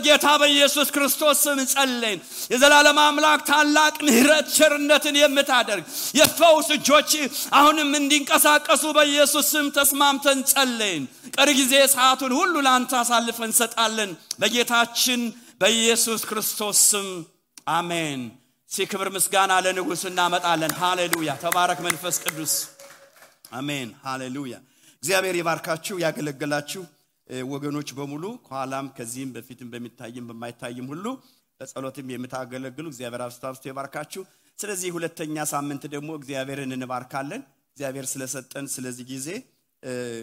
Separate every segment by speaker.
Speaker 1: በጌታ በኢየሱስ ክርስቶስ ስም ጸልየን የዘላለም አምላክ ታላቅ ምህረት ቸርነትን የምታደርግ የፈውስ እጆች አሁንም እንዲንቀሳቀሱ በኢየሱስ ስም ተስማምተን ጸልየን ቀሪ ጊዜ ሰዓቱን ሁሉ ላንተ አሳልፈን ሰጣለን በጌታችን በኢየሱስ ክርስቶስ ስም አሜን ሲክብር ምስጋና ለንጉስ እናመጣለን ሃሌሉያ ተባረክ መንፈስ ቅዱስ አሜን ሃሌሉያ እግዚአብሔር ይባርካችሁ ያገለግላችሁ ወገኖች በሙሉ ኋላም ከዚህም በፊትም በሚታይም በማይታይም ሁሉ በጸሎትም የምታገለግሉ እግዚአብሔር አብስታብስቶ ይባርካችሁ ስለዚህ ሁለተኛ ሳምንት ደግሞ እግዚአብሔርን እንባርካለን እግዚአብሔር ስለሰጠን ስለዚህ ጊዜ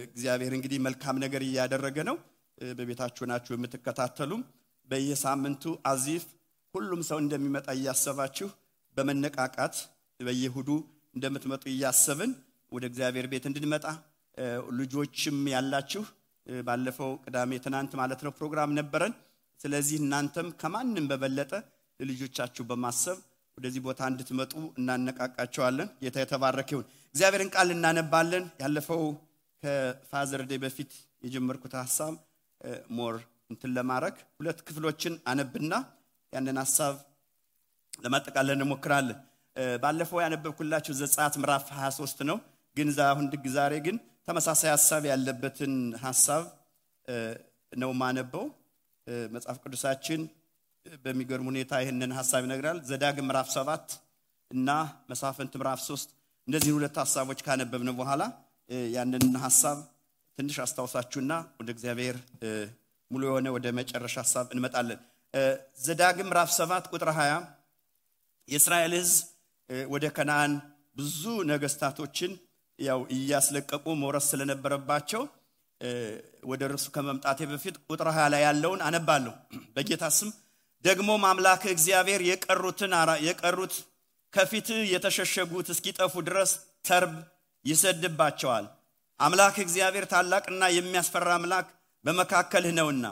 Speaker 1: እግዚአብሔር እንግዲህ መልካም ነገር ያደረገ ነው በቤታችሁ ናችሁ የምትከታተሉ በየሳምንቱ አዚፍ ሁሉም ሰው እንደሚመጣ ያያሰባችሁ በመነቃቃት በየሁዱ እንደምትመጡ ያያሰብን ወደ እግዚአብሔር ቤት እንድንመጣ ልጆችም ያላችሁ ባለፈው ቅዳሜ ትናንት ማለት ነው ፕሮግራም ነበረን ስለዚህ እናንተም ከማንንም በበለጠ ለልጆቻችሁ በማሰብ ወደዚህ ቦታ እንድትመጡ እናነቃቃቸዋለን ጌታ የተባረከ ይሁን እግዚአብሔርን ቃል እናነባለን ያለፈው ከፋዘር ዴይ በፊት የጀመርኩት ሐሳብ ሞር እንትን ለማረክ ሁለት ክፍሎችን አነብና ያንን ሐሳብ ለማጠቃለል እንሞክራለን ባለፈው ያነበብኩላችሁ ዘጸአት ምዕራፍ 23 ነው ግን ዛሬ ግን ተመሳሳይ ሐሳብ ያለበትን ሐሳብ ነው ማነበው መጽሐፍ ቅዱሳችን በሚገርም ሁኔታ ይሄንን ሐሳብ ይነግራል ዘዳግም ምዕራፍ 7 እና መሳፍንት ምዕራፍ 3 እንደዚህ ሁለት ሐሳቦች ካነበብን በኋላ ያንን ሐሳብ ትንሽ አስተዋውሳችሁና ወደ እግዚአብሔር ሙሉ የሆነ ወደ መጨረሻ ሐሳብ እንመጣለን ዘዳግም ምዕራፍ 7 ቁጥር 20 የእስራኤል ሕዝብ ወደ ከነዓን ብዙ ነገስታቶችን ያው ያስለቀቁ ሞረስ ስለነበረባቸው ወደ እርሱ ከመምጣቴ በፊት ቁጥር 20 ላይ ያለውን አነባለሁ በጌታ ስም ደግሞ አምላክ እግዚአብሔር የቀሩት ከፊት የተሸሸጉት እስኪጠፉ ድረስ ተርብ ይሰድባቸዋል አምላክ እግዚአብሔር ታላቅና የሚያስፈራ አምላክ በመካከልህ ነውና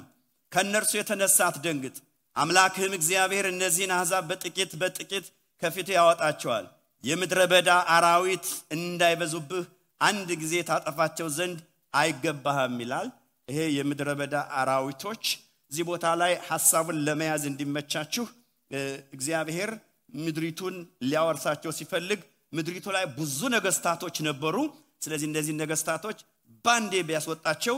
Speaker 1: ከነርሱ የተነሳ አትደንግጥ አምላክህም እግዚአብሔር እነዚህን አሕዛብ በጥቂት ከፊት ያወጣቸዋል የምድረ በዳ አራዊት እንዳይበዙብህ አንድ ጊዜ ታጠፋቸው ዘንድ አይገባህም ይላል ይሄ የምድረ በዳ አራዊቶች እዚህ ቦታ ላይ ሐሳቡን ለመያዝ እንዲመቻችሁ እግዚአብሔር ምድሪቱን ሊያወርሳቸው ሲፈልግ ምድሪቱ ላይ ብዙ ነገስታቶች ነበሩ ስለዚህ እነዚህ ነገስታቶች ባንዴ ቢያስወጣቸው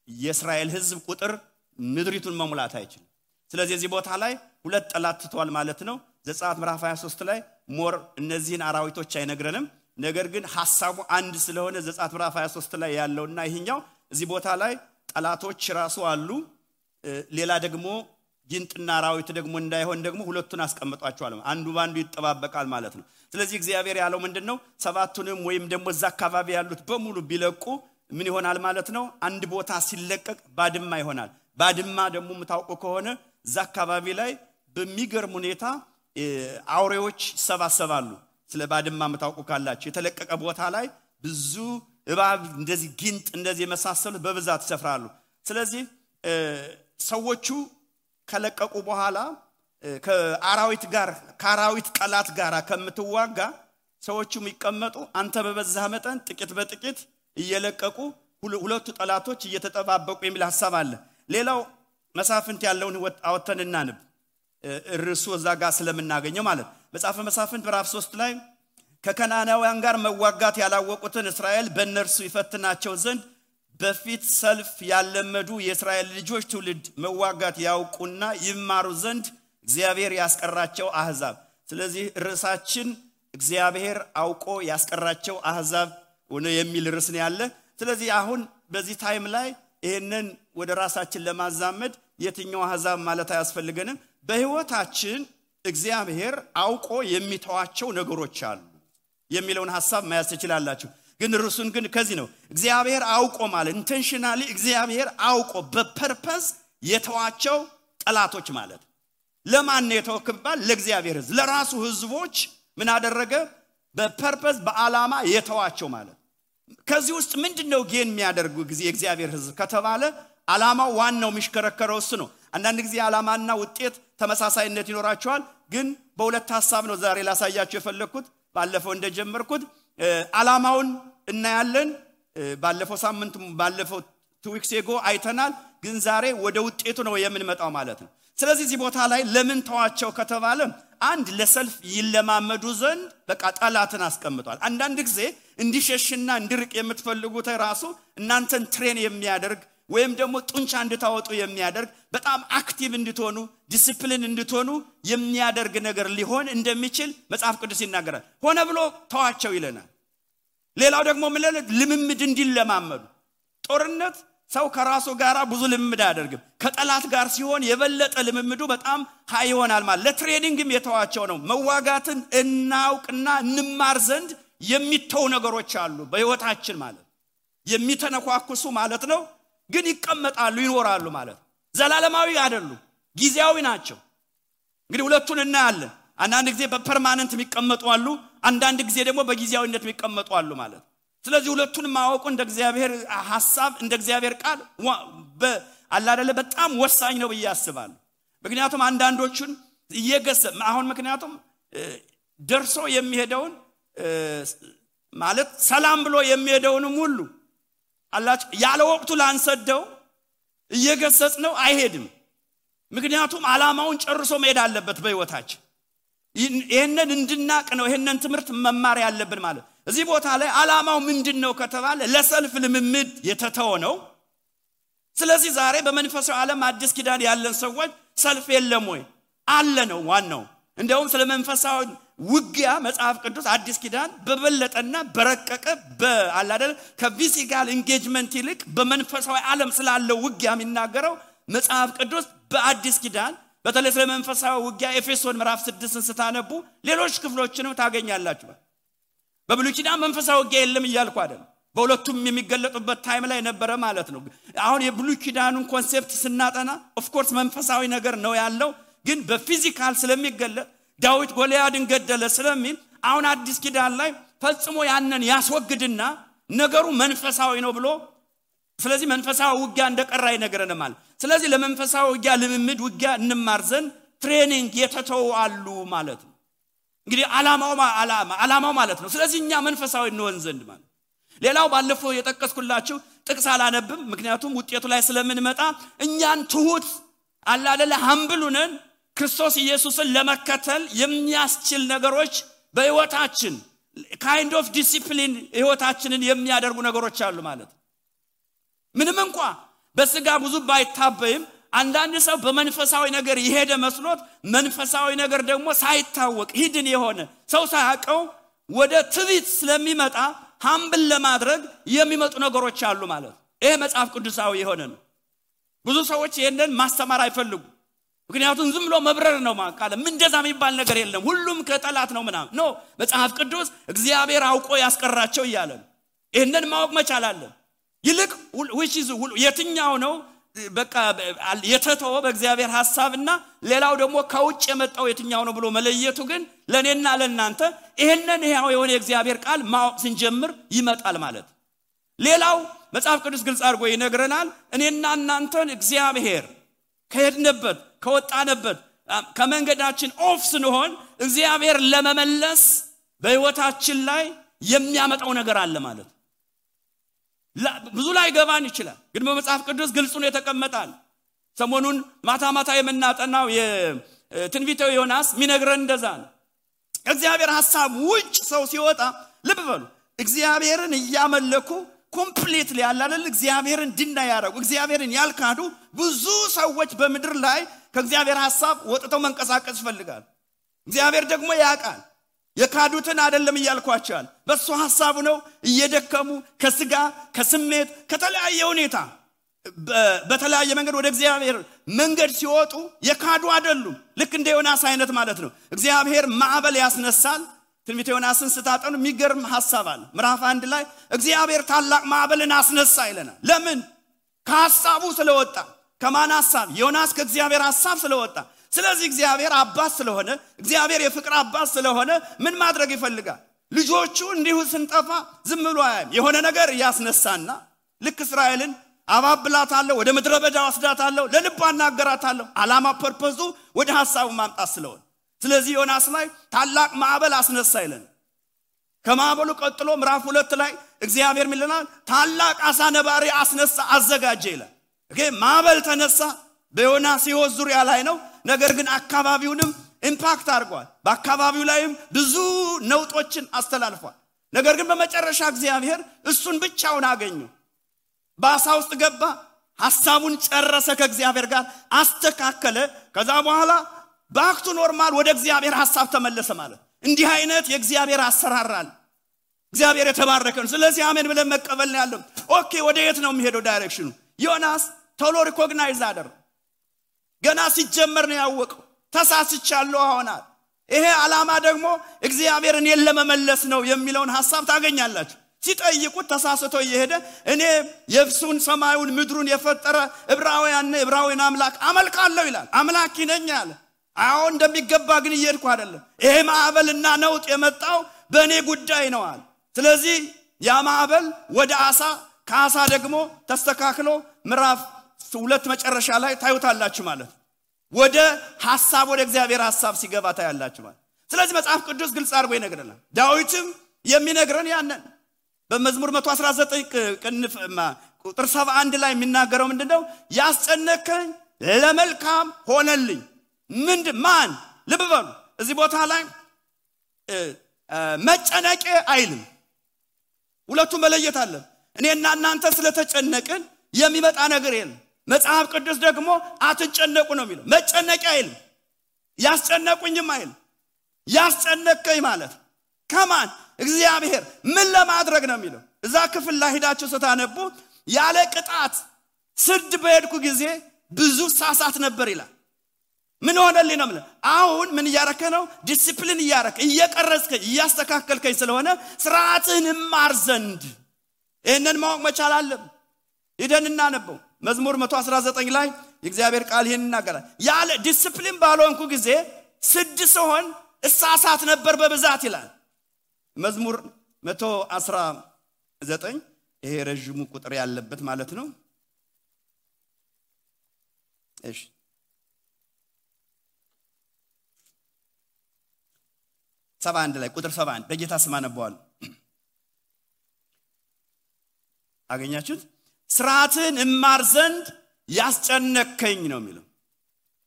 Speaker 1: የእስራኤል ሕዝብ ቁጥር ምድሪቱን መሙላት አይችልም ስለዚህ እዚህ ቦታ ላይ ሁለት ጠላት ተቷል ማለት ነው ዘጸአት ምዕራፍ 23 ላይ ሞር እነዚህን አራዊቶች አይነግረንም ነገር ግን ሐሳቡ አንድ ስለሆነ ዘጸአት ምዕራፍ 23 ላይ ያለውና ይሄኛው እዚህ ቦታ ላይ ጠላቶች ራሱ አሉ ሌላ ደግሞ ጊንጥና አራዊት ደግሞ እንዳይሆን ደግሞ ሁለቱን አስቀምጧቸዋል አንዱ ባንዱ ይተባበቃል ማለት ነው ስለዚህ እግዚአብሔር ያለው ምንድነው ሰባቱንም ወይም ደግሞ እዛ አካባቢ ያሉት በሙሉ ቢለቁ ምን ይሆናል ማለት ነው አንድ ቦታ ሲለቀቅ ባድማ ይሆናል ባድማ ደግሞ መታውቁ ከሆነ እዛ አካባቢ ላይ በሚገርም ሁኔታ አውሬዎች ሰባሰባሉ ስለ ባድማ መታውቁ ካላችሁ የተለቀቀ ቦታ ላይ ብዙ እባብ እንደዚህ ጊንጥ እንደዚህ የመሳሰሉት በብዛት ይሰፍራሉ ስለዚህ ሰዎቹ ከለቀቁ በኋላ ከአራዊት ጠላት ጋር ከምትዋጋ ሰዎቹ የሚቀመጡ አንተ በበዛ መጠን ጥቂት በጥቂት እየለቀቁ ሁለቱ ጠላቶች እየተጠባበቁ የሚል ሐሳብ አለ ሌላው መሳፍንት ያለውን አወተንና ንብ ርሱ እዛጋ ስለምናገኘው ማለት መጽሐፈ መሳፍንት ምዕራፍ 3 ላይ ከከናናውያን ጋር መዋጋት ያላወቁትን እስራኤል በእነርሱ ይፈትናቸው ዘንድ በፊት ሰልፍ ያለመዱ የእስራኤል ልጆች ትውልድ መዋጋት ያውቁና ይማሩ ዘንድ እግዚአብሔር ያስቀራቸው አሕዛብ ስለዚህ ርዕሳችን እግዚአብሔር አውቆ ያስቀራቸው አሕዛብ ሆነ የሚል ርዕስ ነው ያለ ስለዚህ አሁን በዚህ ታይም ላይ ይሄንን ወደ ራሳችን ለማዛመድ የትኛው አሕዛብ ማለት አያስፈልገንም በህይወታችን እግዚአብሔር አውቆ የሚተዋቸው ነገሮች አሉ የሚለውን ሐሳብ ማያስ ይችላልላችሁ ግን ርዕሱን ግን ከዚህ ነው እግዚአብሔር አውቆ ማለት ኢንቴንሽናሊ እግዚአብሔር አውቆ በፐርፐዝ የተዋቸው ጠላቶች ማለት ለማን ነው የተወከባል ለእግዚአብሔር ሕዝብ ለራሱ ሕዝቦች ምን አደረገ በፐርፐዝ በአላማ የተዋቸው ማለት ከዚህ ውስጥ ምንድነው ጌን የሚያደርጉ ጊዜ እግዚአብሔር ሕዝብ ከተባለ አላማው ዋናው ምሽከረከረው እሱ ነው አንዳንድ ጊዜ አላማና ውጤት ተመሳሳይነት ይኖራቸዋል ግን በሁለት ሐሳብ ነው ዛሬ ላሳያችሁ የፈለኩት ባለፈው እንደጀመርኩት አላማውን እናያለን ባለፈው ሳምንት ባለፈው 2 weeks ago አይተናል ግን ዛሬ ወደ ውጤቱ ነው የምንመጣው ማለት ነው ስለዚህ እዚህ ቦታ ላይ ለምን ተዋቸው ከተባለ አንድ ለሰልፍ ይለማመዱ ዘንድ በቃ ጠላትን አስቀምጧል። አንዳንድ ጊዜ እንዲሸሽና እንዲርቅ የምትፈልጉት ራሱ እናንተን ትሬን የሚያደርግ ወይም ደግሞ ጡንቻ እንድታወጡ የሚያደርግ በጣም አክቲቭ እንድትሆኑ ዲሲፕሊን እንድትሆኑ የሚያደርግ ነገር ሊሆን እንደሚችል መጽሐፍ ቅዱስ ይናገራል። ሆነ ብሎ ተዋቸው ይለናል። ሌላው ደግሞ ልምምድ እንዲለማመዱ ጦርነት ሰው ከራሱ ጋር ብዙ ልምምድ አያደርግም። ከጠላት ጋር ሲሆን የበለጠ ልምምዱ በጣም ሃይ ይሆናል ማለት ለትሬኒንግም የተዋቸው ነው። መዋጋትን እናውቅና እንማር ዘንድ የሚተው ነገሮች አሉ በህይወታችን ማለት የሚተነኳኩሱ ማለት ነው። ግን ይቀመጣሉ ይኖራሉ ማለት ዘላለማዊ አይደሉም፣ ጊዜያዊ ናቸው። እንግዲህ ሁለቱን እናያለን። አንዳንድ ጊዜ በፐርማነንት የሚቀመጡ አሉ፣ አንዳንድ ጊዜ ደግሞ በጊዜያዊነት የሚቀመጡ አሉ ማለት። ስለዚህ ሁለቱን ማወቁ እንደ እግዚአብሔር ሐሳብ እንደ እግዚአብሔር ቃል አላደለ በጣም ወሳኝ ነው ብዬ አስባለሁ። ምክንያቱም አንዳንዶቹን እየገሰም አሁን ምክንያቱም ደርሶ የሚሄደውን ማለት ሰላም ብሎ የሚሄደውንም ሁሉ አላህ ያለ ወቅቱ ላንሰደው እየገሰጽ ነው አይሄድም። ምክንያቱም ዓላማውን ጨርሶ መሄድ አለበት በህይወታችን። ይሄንን እንድናቅ ነው ይሄንን ትምህርት መማር ያለብን ማለት። እዚህ ቦታ ላይ ዓላማው ምንድነው ከተባለ ለሰልፍ ልምምድ የተተወ ነው። ስለዚህ ዛሬ በመንፈሳዊ ዓለም አዲስ ኪዳን ያለን ሰዎች ሰልፍ የለም ወይ አለ ነው ዋናው። እንደውም ስለ መንፈሳዊ ውጊያ መጽሐፍ ቅዱስ አዲስ ኪዳን በበለጠና በረቀቀ በአላደለ ከፊዚካል ኢንጌጅመንት ይልቅ በመንፈሳዊ ዓለም ስላለው ውጊያ የሚናገረው መጽሐፍ ቅዱስ በአዲስ ኪዳን በተለይ ስለ መንፈሳዊ ውጊያ ኤፌሶን ምዕራፍ 6ን ስታነቡ ሌሎች ክፍሎችንም ታገኛላችሁ። በብሉይ ኪዳን መንፈሳዊ ውጊያ የለም እያልኩ አይደለም፣ በሁለቱም የሚገለጡበት ታይም ላይ ነበረ ማለት ነው። አሁን የብሉይ ኪዳኑን ኮንሴፕት ስናጠና ኦፍ ኮርስ መንፈሳዊ ነገር ነው ያለው፣ ግን በፊዚካል ስለሚገለጥ ዳዊት ጎልያድን ገደለ ስለሚል አሁን አዲስ ኪዳን ላይ ፈጽሞ ያንን ያስወግድና ነገሩ መንፈሳዊ ነው ብሎ ስለዚህ መንፈሳዊ ውጊያ እንደቀራ ይነገረናል ማለት። ስለዚህ ለመንፈሳዊ ውጊያ ልምምድ ውጊያ እንማር ዘንድ ትሬኒንግ የተተው አሉ ማለት ነው። እንግዲህ ዓላማው ማለት ነው። ስለዚህ እኛ መንፈሳዊ እንሆን ዘንድ ማለት። ሌላው ባለፈው የጠቀስኩላችሁ ጥቅስ አላነብም ምክንያቱም ውጤቱ ላይ ስለምንመጣ እኛን ትሁት አላደለ ሀምብሉነን ክርስቶስ ኢየሱስን ለመከተል የሚያስችል ነገሮች በህይወታችን kind of discipline ህይወታችንን የሚያደርጉ ነገሮች አሉ ማለት። ምንም እንኳን በስጋ ብዙ ባይታበይም አንዳንድ ሰው በመንፈሳዊ ነገር ይሄደ መስሎት መንፈሳዊ ነገር ደግሞ ሳይታወቅ ሂድን የሆነ ሰው ሳያቀው ወደ ትዕቢት ስለሚመጣ ሀምብል ለማድረግ የሚመጡ ነገሮች አሉ ማለት። ይሄ መጽሐፍ ቅዱሳዊ የሆነ ነው። ብዙ ሰዎች ይሄንን ማስተማር አይፈልጉ ምክንያቱም ዝም ብሎ መብረር ነው ማቃለ ምን እንደዛ የሚባል ነገር የለም ሁሉም ከጠላት ነው ምናምን ነው። መጽሐፍ ቅዱስ እግዚአብሔር አውቆ ያስቀራቸው ይያለ ይሄንን ማወቅ መቻል አለ። ይልቅ which is የትኛው ነው በቃ የተተወ በእግዚአብሔር ሐሳብና ሌላው ደግሞ ከውጭ የመጣው የትኛው ነው ብሎ መለየቱ ግን ለኔና ለናንተ ይሄንን ያው የሆነ እግዚአብሔር ቃል ማወቅ ስንጀምር ይመጣል ማለት። ሌላው መጽሐፍ ቅዱስ ግልጽ አድርጎ ይነግረናል እኔና እናንተን እግዚአብሔር ከሄድንበት ከወጣንበት ከመንገዳችን ኦፍ ስንሆን እግዚአብሔር ለመመለስ በህይወታችን ላይ የሚያመጣው ነገር አለ ማለት። ብዙ ላይ ገባን ይችላል ግን በመጽሐፍ ቅዱስ ግልጽ ነው የተቀመጣል። ሰሞኑን ማታ የምናጠናው የትንቢተ ዮናስ ሚነግረን እንደዛ ነው። እግዚአብሔር ሐሳብ ውጭ ሰው ሲወጣ ልብ በሉ እግዚአብሔርን ያመለኩ ኮምፕሊትሊ ያላለ እግዚአብሔርን ድና ያረጉ እግዚአብሔርን ያልካዱ ብዙ ሰዎች በመድር ላይ ከእግዚአብሔር ሐሳብ ወጥተው መንቀሳቀስ ይፈልጋል። እግዚአብሔር ደግሞ ያቃል የካዱትን አይደለም ይያልኳቸዋል በሱ ሐሳቡ ነው እየደከሙ ከስጋ ከስሜት ከተለያየ ሁኔታ በተለያየ መንገድ ወደ እግዚአብሔር መንገድ ሲወጡ የካዱ አይደሉም። ልክ እንደ ዮናስ አይነት ማለት ነው። እግዚአብሔር ማዕበል ያስነሳል። ትንቢተ ዮናስን ስታጠኑ የሚገርም ሐሳብ አለ። ምዕራፍ 1 ላይ እግዚአብሔር ታላቅ ማዕበልን አስነሳ ይለናል። ለምን? ከሐሳቡ ስለወጣ። ከማን ሐሳብ? ዮናስ ከእግዚአብሔር ሐሳብ ስለወጣ። ስለዚህ እግዚአብሔር አባት ስለሆነ እግዚአብሔር የፍቅር አባት ስለሆነ ምን ማድረግ ይፈልጋል? ልጆቹ እንዲሁ ስንጠፋ ዝም ብሎ አያም የሆነ ነገር ያስነሳና ልክ እስራኤልን አባብላታለሁ ወደ ምድረ በዳ ወስዳታለሁ ለልቧ እናገራታለሁ ዓላማ ፐርፐዙ ወደ ሐሳቡ ማምጣት ስለሆነ ስለዚህ ዮናስ ላይ ታላቅ ማዕበል አስነሳ ይለናል። ከማዕበሉ ቀጥሎ ምዕራፍ 2 ላይ እግዚአብሔር ምን ይለናል? ታላቅ አሳ ነባሪ አስነሳ አዘጋጀ ይላል። ማዕበል ተነሳ በዮናስ ሕይወት ዙሪያ ላይ ነው። ነገር ግን አካባቢውንም ኢምፓክት አድርጓል። በአካባቢው ላይም ብዙ ነውጦችን አስተላልፏል። ነገር ግን በመጨረሻ እግዚአብሔር እሱን ብቻውን አገኘው። በአሳ ውስጥ ገባ፣ ሐሳቡን ጨረሰ፣ ከእግዚአብሔር ጋር አስተካከለ። ከዛ በኋላ ባክቱ ኖርማል ወደ እግዚአብሔር ሐሳብ ተመለሰ ማለት። እንዲህ አይነት የእግዚአብሔር አሰራራል። እግዚአብሔር የተባረከ ነው። ስለዚህ አሜን ብለን መቀበል ነው ያለው። ኦኬ ወደ የት ነው የሚሄደው ዳይሬክሽኑ? ዮናስ ቶሎ ሪኮግናይዝ አደረገ። ገና ሲጀመር ነው ያወቀው። ተሳስቻለሁ አሁናል። ይሄ ዓላማ ደግሞ እግዚአብሔርን ለመመለስ ነው የሚለውን ሐሳብ ታገኛላችሁ። ሲጠይቁት ተሳስቶ እየሄደ እኔ የብሱን ሰማዩን ምድሩን የፈጠረ ዕብራውያን አምላክ አመልካለሁ ይላል። አምላክ ነኝ አለ። አሁን እንደሚገባ ግን እየሄድኩ አይደለም። ይሄ ማዕበልና ነውጥ የመጣው በእኔ ጉዳይ ነው አለ። ስለዚህ ያ ማዕበል ወደ አሳ፣ ከአሳ ደግሞ ተስተካክሎ ምዕራፍ 2 መጨረሻ ላይ ታዩታላችሁ ማለት ወደ ሐሳብ ወደ እግዚአብሔር ሐሳብ ሲገባ ታያላችሁ ማለት። ስለዚህ መጽሐፍ ቅዱስ ግልጽ አድርጎ ይነግረናል። ዳዊትም የሚነግረን ያንን በመዝሙር 119 ቁጥር 71 ላይ የሚናገረው ምንድነው? ያስጨነቀኝ ለመልካም ሆነልኝ። ማን ልብ በሉ እዚህ ቦታ ላይ መጨነቄ አይልም። ሁለቱም መለየት አለ። እኔና እናንተ ስለተጨነቅን የሚመጣ ነገር የለም። መጽሐፍ ቅዱስ ደግሞ አትጨነቁ ነው የሚለው። መጨነቄ አይልም፣ ያስጨነቁኝም አይልም። ያስጨነቀኝ ማለት ከማን? እግዚአብሔር ምን ለማድረግ ነው የሚለው። እዛ ክፍል ላይ ሄዳችሁ ስታነቡ ያለ ቅጣት ስድ በሄድኩ ጊዜ ብዙ ሳሳት ነበር ይላል። ምን ሆነልኝ ነው ማለት። አሁን ምን እያረከ ነው? ዲሲፕሊን እያረከ እየቀረጽከኝ እያስተካከልከኝ ስለሆነ ስርዓትህን ማር ዘንድ እነን ማወቅ መቻል አለብን። ሄደን እናነበው መዝሙር 119 ላይ የእግዚአብሔር ቃል ይሄን ይናገራል። ያለ ዲሲፕሊን ባልሆንኩ ጊዜ ስድ ሲሆን እሳሳት ነበር በብዛት ይላል። መዝሙር 119 ይሄ ረጅሙ ቁጥር ያለበት ማለት ነው። እሺ 71 ላይ ቁጥር 71 በጌታ ስም አነበዋለሁ። አገኛችሁት? ስርዓትን እማር ዘንድ ያስጨነቀኝ ነው የሚለው።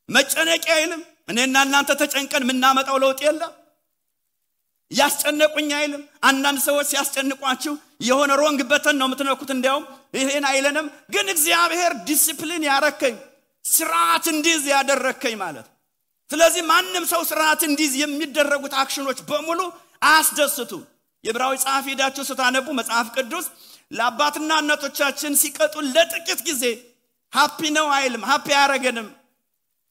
Speaker 1: መጨነቅ አይልም። እኔና እናንተ ተጨንቀን ምናመጣው ለውጥ የለም። ያስጨነቁኝ አይልም። አንዳንድ ሰዎች ሲያስጨንቋችሁ የሆነ ሮንግ በተን ነው የምትነኩት። እንዲያውም ይሄን አይለንም። ግን እግዚአብሔር ዲሲፕሊን ያረከኝ ስርዓት እንዲዝ ያደረከኝ ማለት። ስለዚህ ማንም ሰው ስርዓት እንዲዝ የሚደረጉት አክሽኖች በሙሉ አያስደስቱ። የዕብራዊ ጸሐፊ ሄዳችሁ ስታነቡ መጽሐፍ ቅዱስ ለአባትና እናቶቻችን ሲቀጡ ለጥቂት ጊዜ ሃፒ ነው አይልም። ሃፒ ያረገንም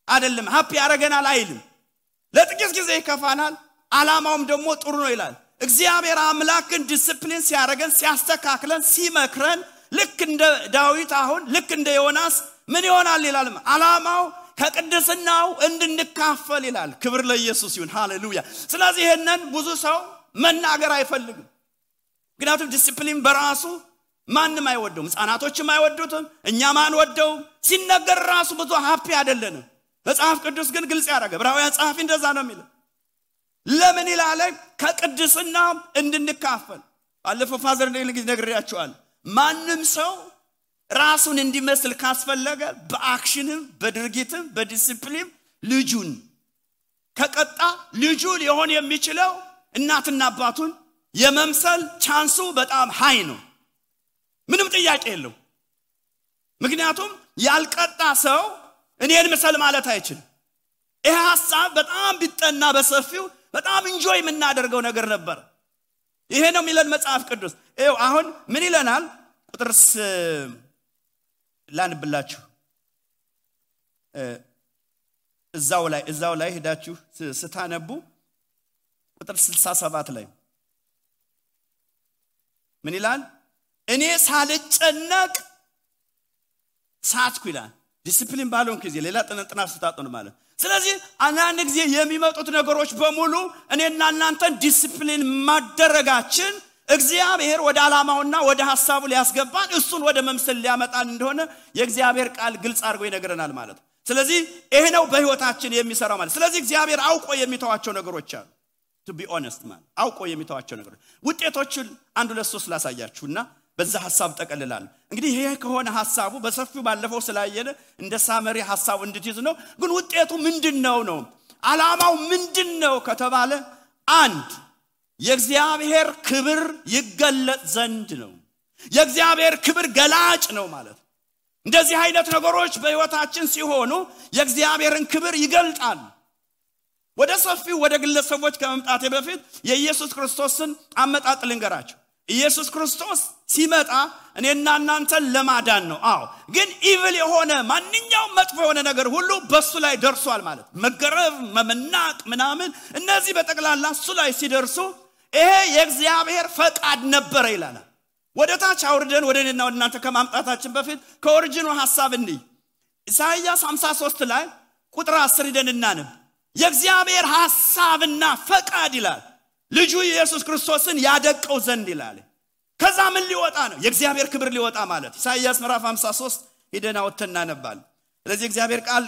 Speaker 1: አይደለም፣ ሃፒ ያረገናል አይልም። ለጥቂት ጊዜ ይከፋናል፣ ዓላማውም ደግሞ ጥሩ ነው ይላል። እግዚአብሔር አምላክን ዲሲፕሊን ሲያረገን ሲያስተካክለን ሲመክረን ልክ እንደ ዳዊት አሁን ልክ እንደ ዮናስ ምን ይሆናል ይላል? ዓላማው ከቅድስናው እንድንካፈል ይላል። ክብር ለኢየሱስ ይሁን። ሃሌሉያ። ስለዚህ ይሄንን ብዙ ሰው መናገር አይፈልግም። ምክንያቱም ዲሲፕሊን በራሱ ማንም አይወደውም። ሕፃናቶችም አይወዱትም፣ እኛም አንወደውም። ሲነገር ራሱ ብዙ ሃፒ አይደለንም። መጽሐፍ ቅዱስ ግን ግልጽ ያደረገ ዕብራውያን ጸሐፊ እንደዛ ነው የሚለው። ለምን ይላል? ከቅድስና እንድንካፈል። ባለፈው ፋዘር እንደዚህ ነግሬያችኋል። ማንም ሰው ራሱን እንዲመስል ካስፈለገ በአክሽንም በድርጊትም በዲሲፕሊን ልጁን ከቀጣ ልጁ ሊሆን የሚችለው እናትና አባቱን የመምሰል ቻንሱ በጣም ሃይ ነው። ምንም ጥያቄ የለው። ምክንያቱም ያልቀጣ ሰው እኔን መሰል ማለት አይችልም። ይሄ ሐሳብ በጣም ቢጠና በሰፊው በጣም ኢንጆይ የምናደርገው ነገር ነበር። ይሄ ነው የሚለን መጽሐፍ ቅዱስ። ይሄው አሁን ምን ይለናል? ቁጥር ላንብላችሁ። እዛው ላይ ሄዳችሁ ስታነቡ ቁጥር 67 ላይ ምን ይላል? እኔ ሳልጨነቅ ሳትኩ ይላል። ዲሲፕሊን ባልሆንኩ ጊዜ ሌላ ጥናት ስታጠኑ ማለት። ስለዚህ አንዳንድ ጊዜ የሚመጡት ነገሮች በሙሉ እኔና እናንተን ዲሲፕሊን ማደረጋችን እግዚአብሔር ወደ ዓላማውና ወደ ሐሳቡ ሊያስገባን እሱን ወደ መምሰል ሊያመጣን እንደሆነ የእግዚአብሔር ቃል ግልጽ አድርጎ ይነግረናል ማለት። ስለዚህ ይሄ ነው በህይወታችን የሚሰራው ማለት። ስለዚህ እግዚአብሔር አውቆ የሚተዋቸው ነገሮች አሉ። to be honest ማለት አውቆ የሚተዋቸው ነገሮች ውጤቶችን 1 2 3 ላሳያችሁና በዛ ሐሳብ ተቀልላል እንግዲህ ይሄ ከሆነ ሐሳቡ በሰፊው ባለፈው ስላየነ እንደ ሳመሪ ሐሳቡ እንድትይዝ ነው ግን ውጤቱ ምንድነው ነው ዓላማው ምንድነው ከተባለ አንድ የእግዚአብሔር ክብር ይገለጥ ዘንድ ነው የእግዚአብሔር ክብር ገላጭ ነው ማለት እንደዚህ አይነት ነገሮች በህይወታችን ሲሆኑ የእግዚአብሔርን ክብር ይገልጣል ወደ ሰፊው ወደ ግለሰቦች ከመምጣቴ በፊት የኢየሱስ ክርስቶስን አመጣጥ ልንገራችሁ ኢየሱስ ክርስቶስ ሲመጣ እኔና እናንተን ለማዳን ነው አዎ ግን ኢቪል የሆነ ማንኛውም መጥፎ የሆነ ነገር ሁሉ በሱ ላይ ደርሷል ማለት መገረፍ መመናቅ ምናምን እነዚህ በጠቅላላ እሱ ላይ ሲደርሱ ይሄ የእግዚአብሔር ፈቃድ ነበር ይላል ወደ ታች አውርደን ወደ እኔና ወደ እናንተ ከማምጣታችን በፊት ከኦሪጂኑ ሐሳብ እንይ ኢሳይያስ 53 ላይ ቁጥር 10 ሄደን እናነብ የእግዚአብሔር ሐሳብና ፈቃድ ይላል ልጁ ኢየሱስ ክርስቶስን ያደቀው ዘንድ ይላል ከዛ ምን ሊወጣ ነው የእግዚአብሔር ክብር ሊወጣ ማለት ኢሳይያስ ምዕራፍ 53 ሄደን አውጥተን እናነባል ስለዚህ እግዚአብሔር ቃል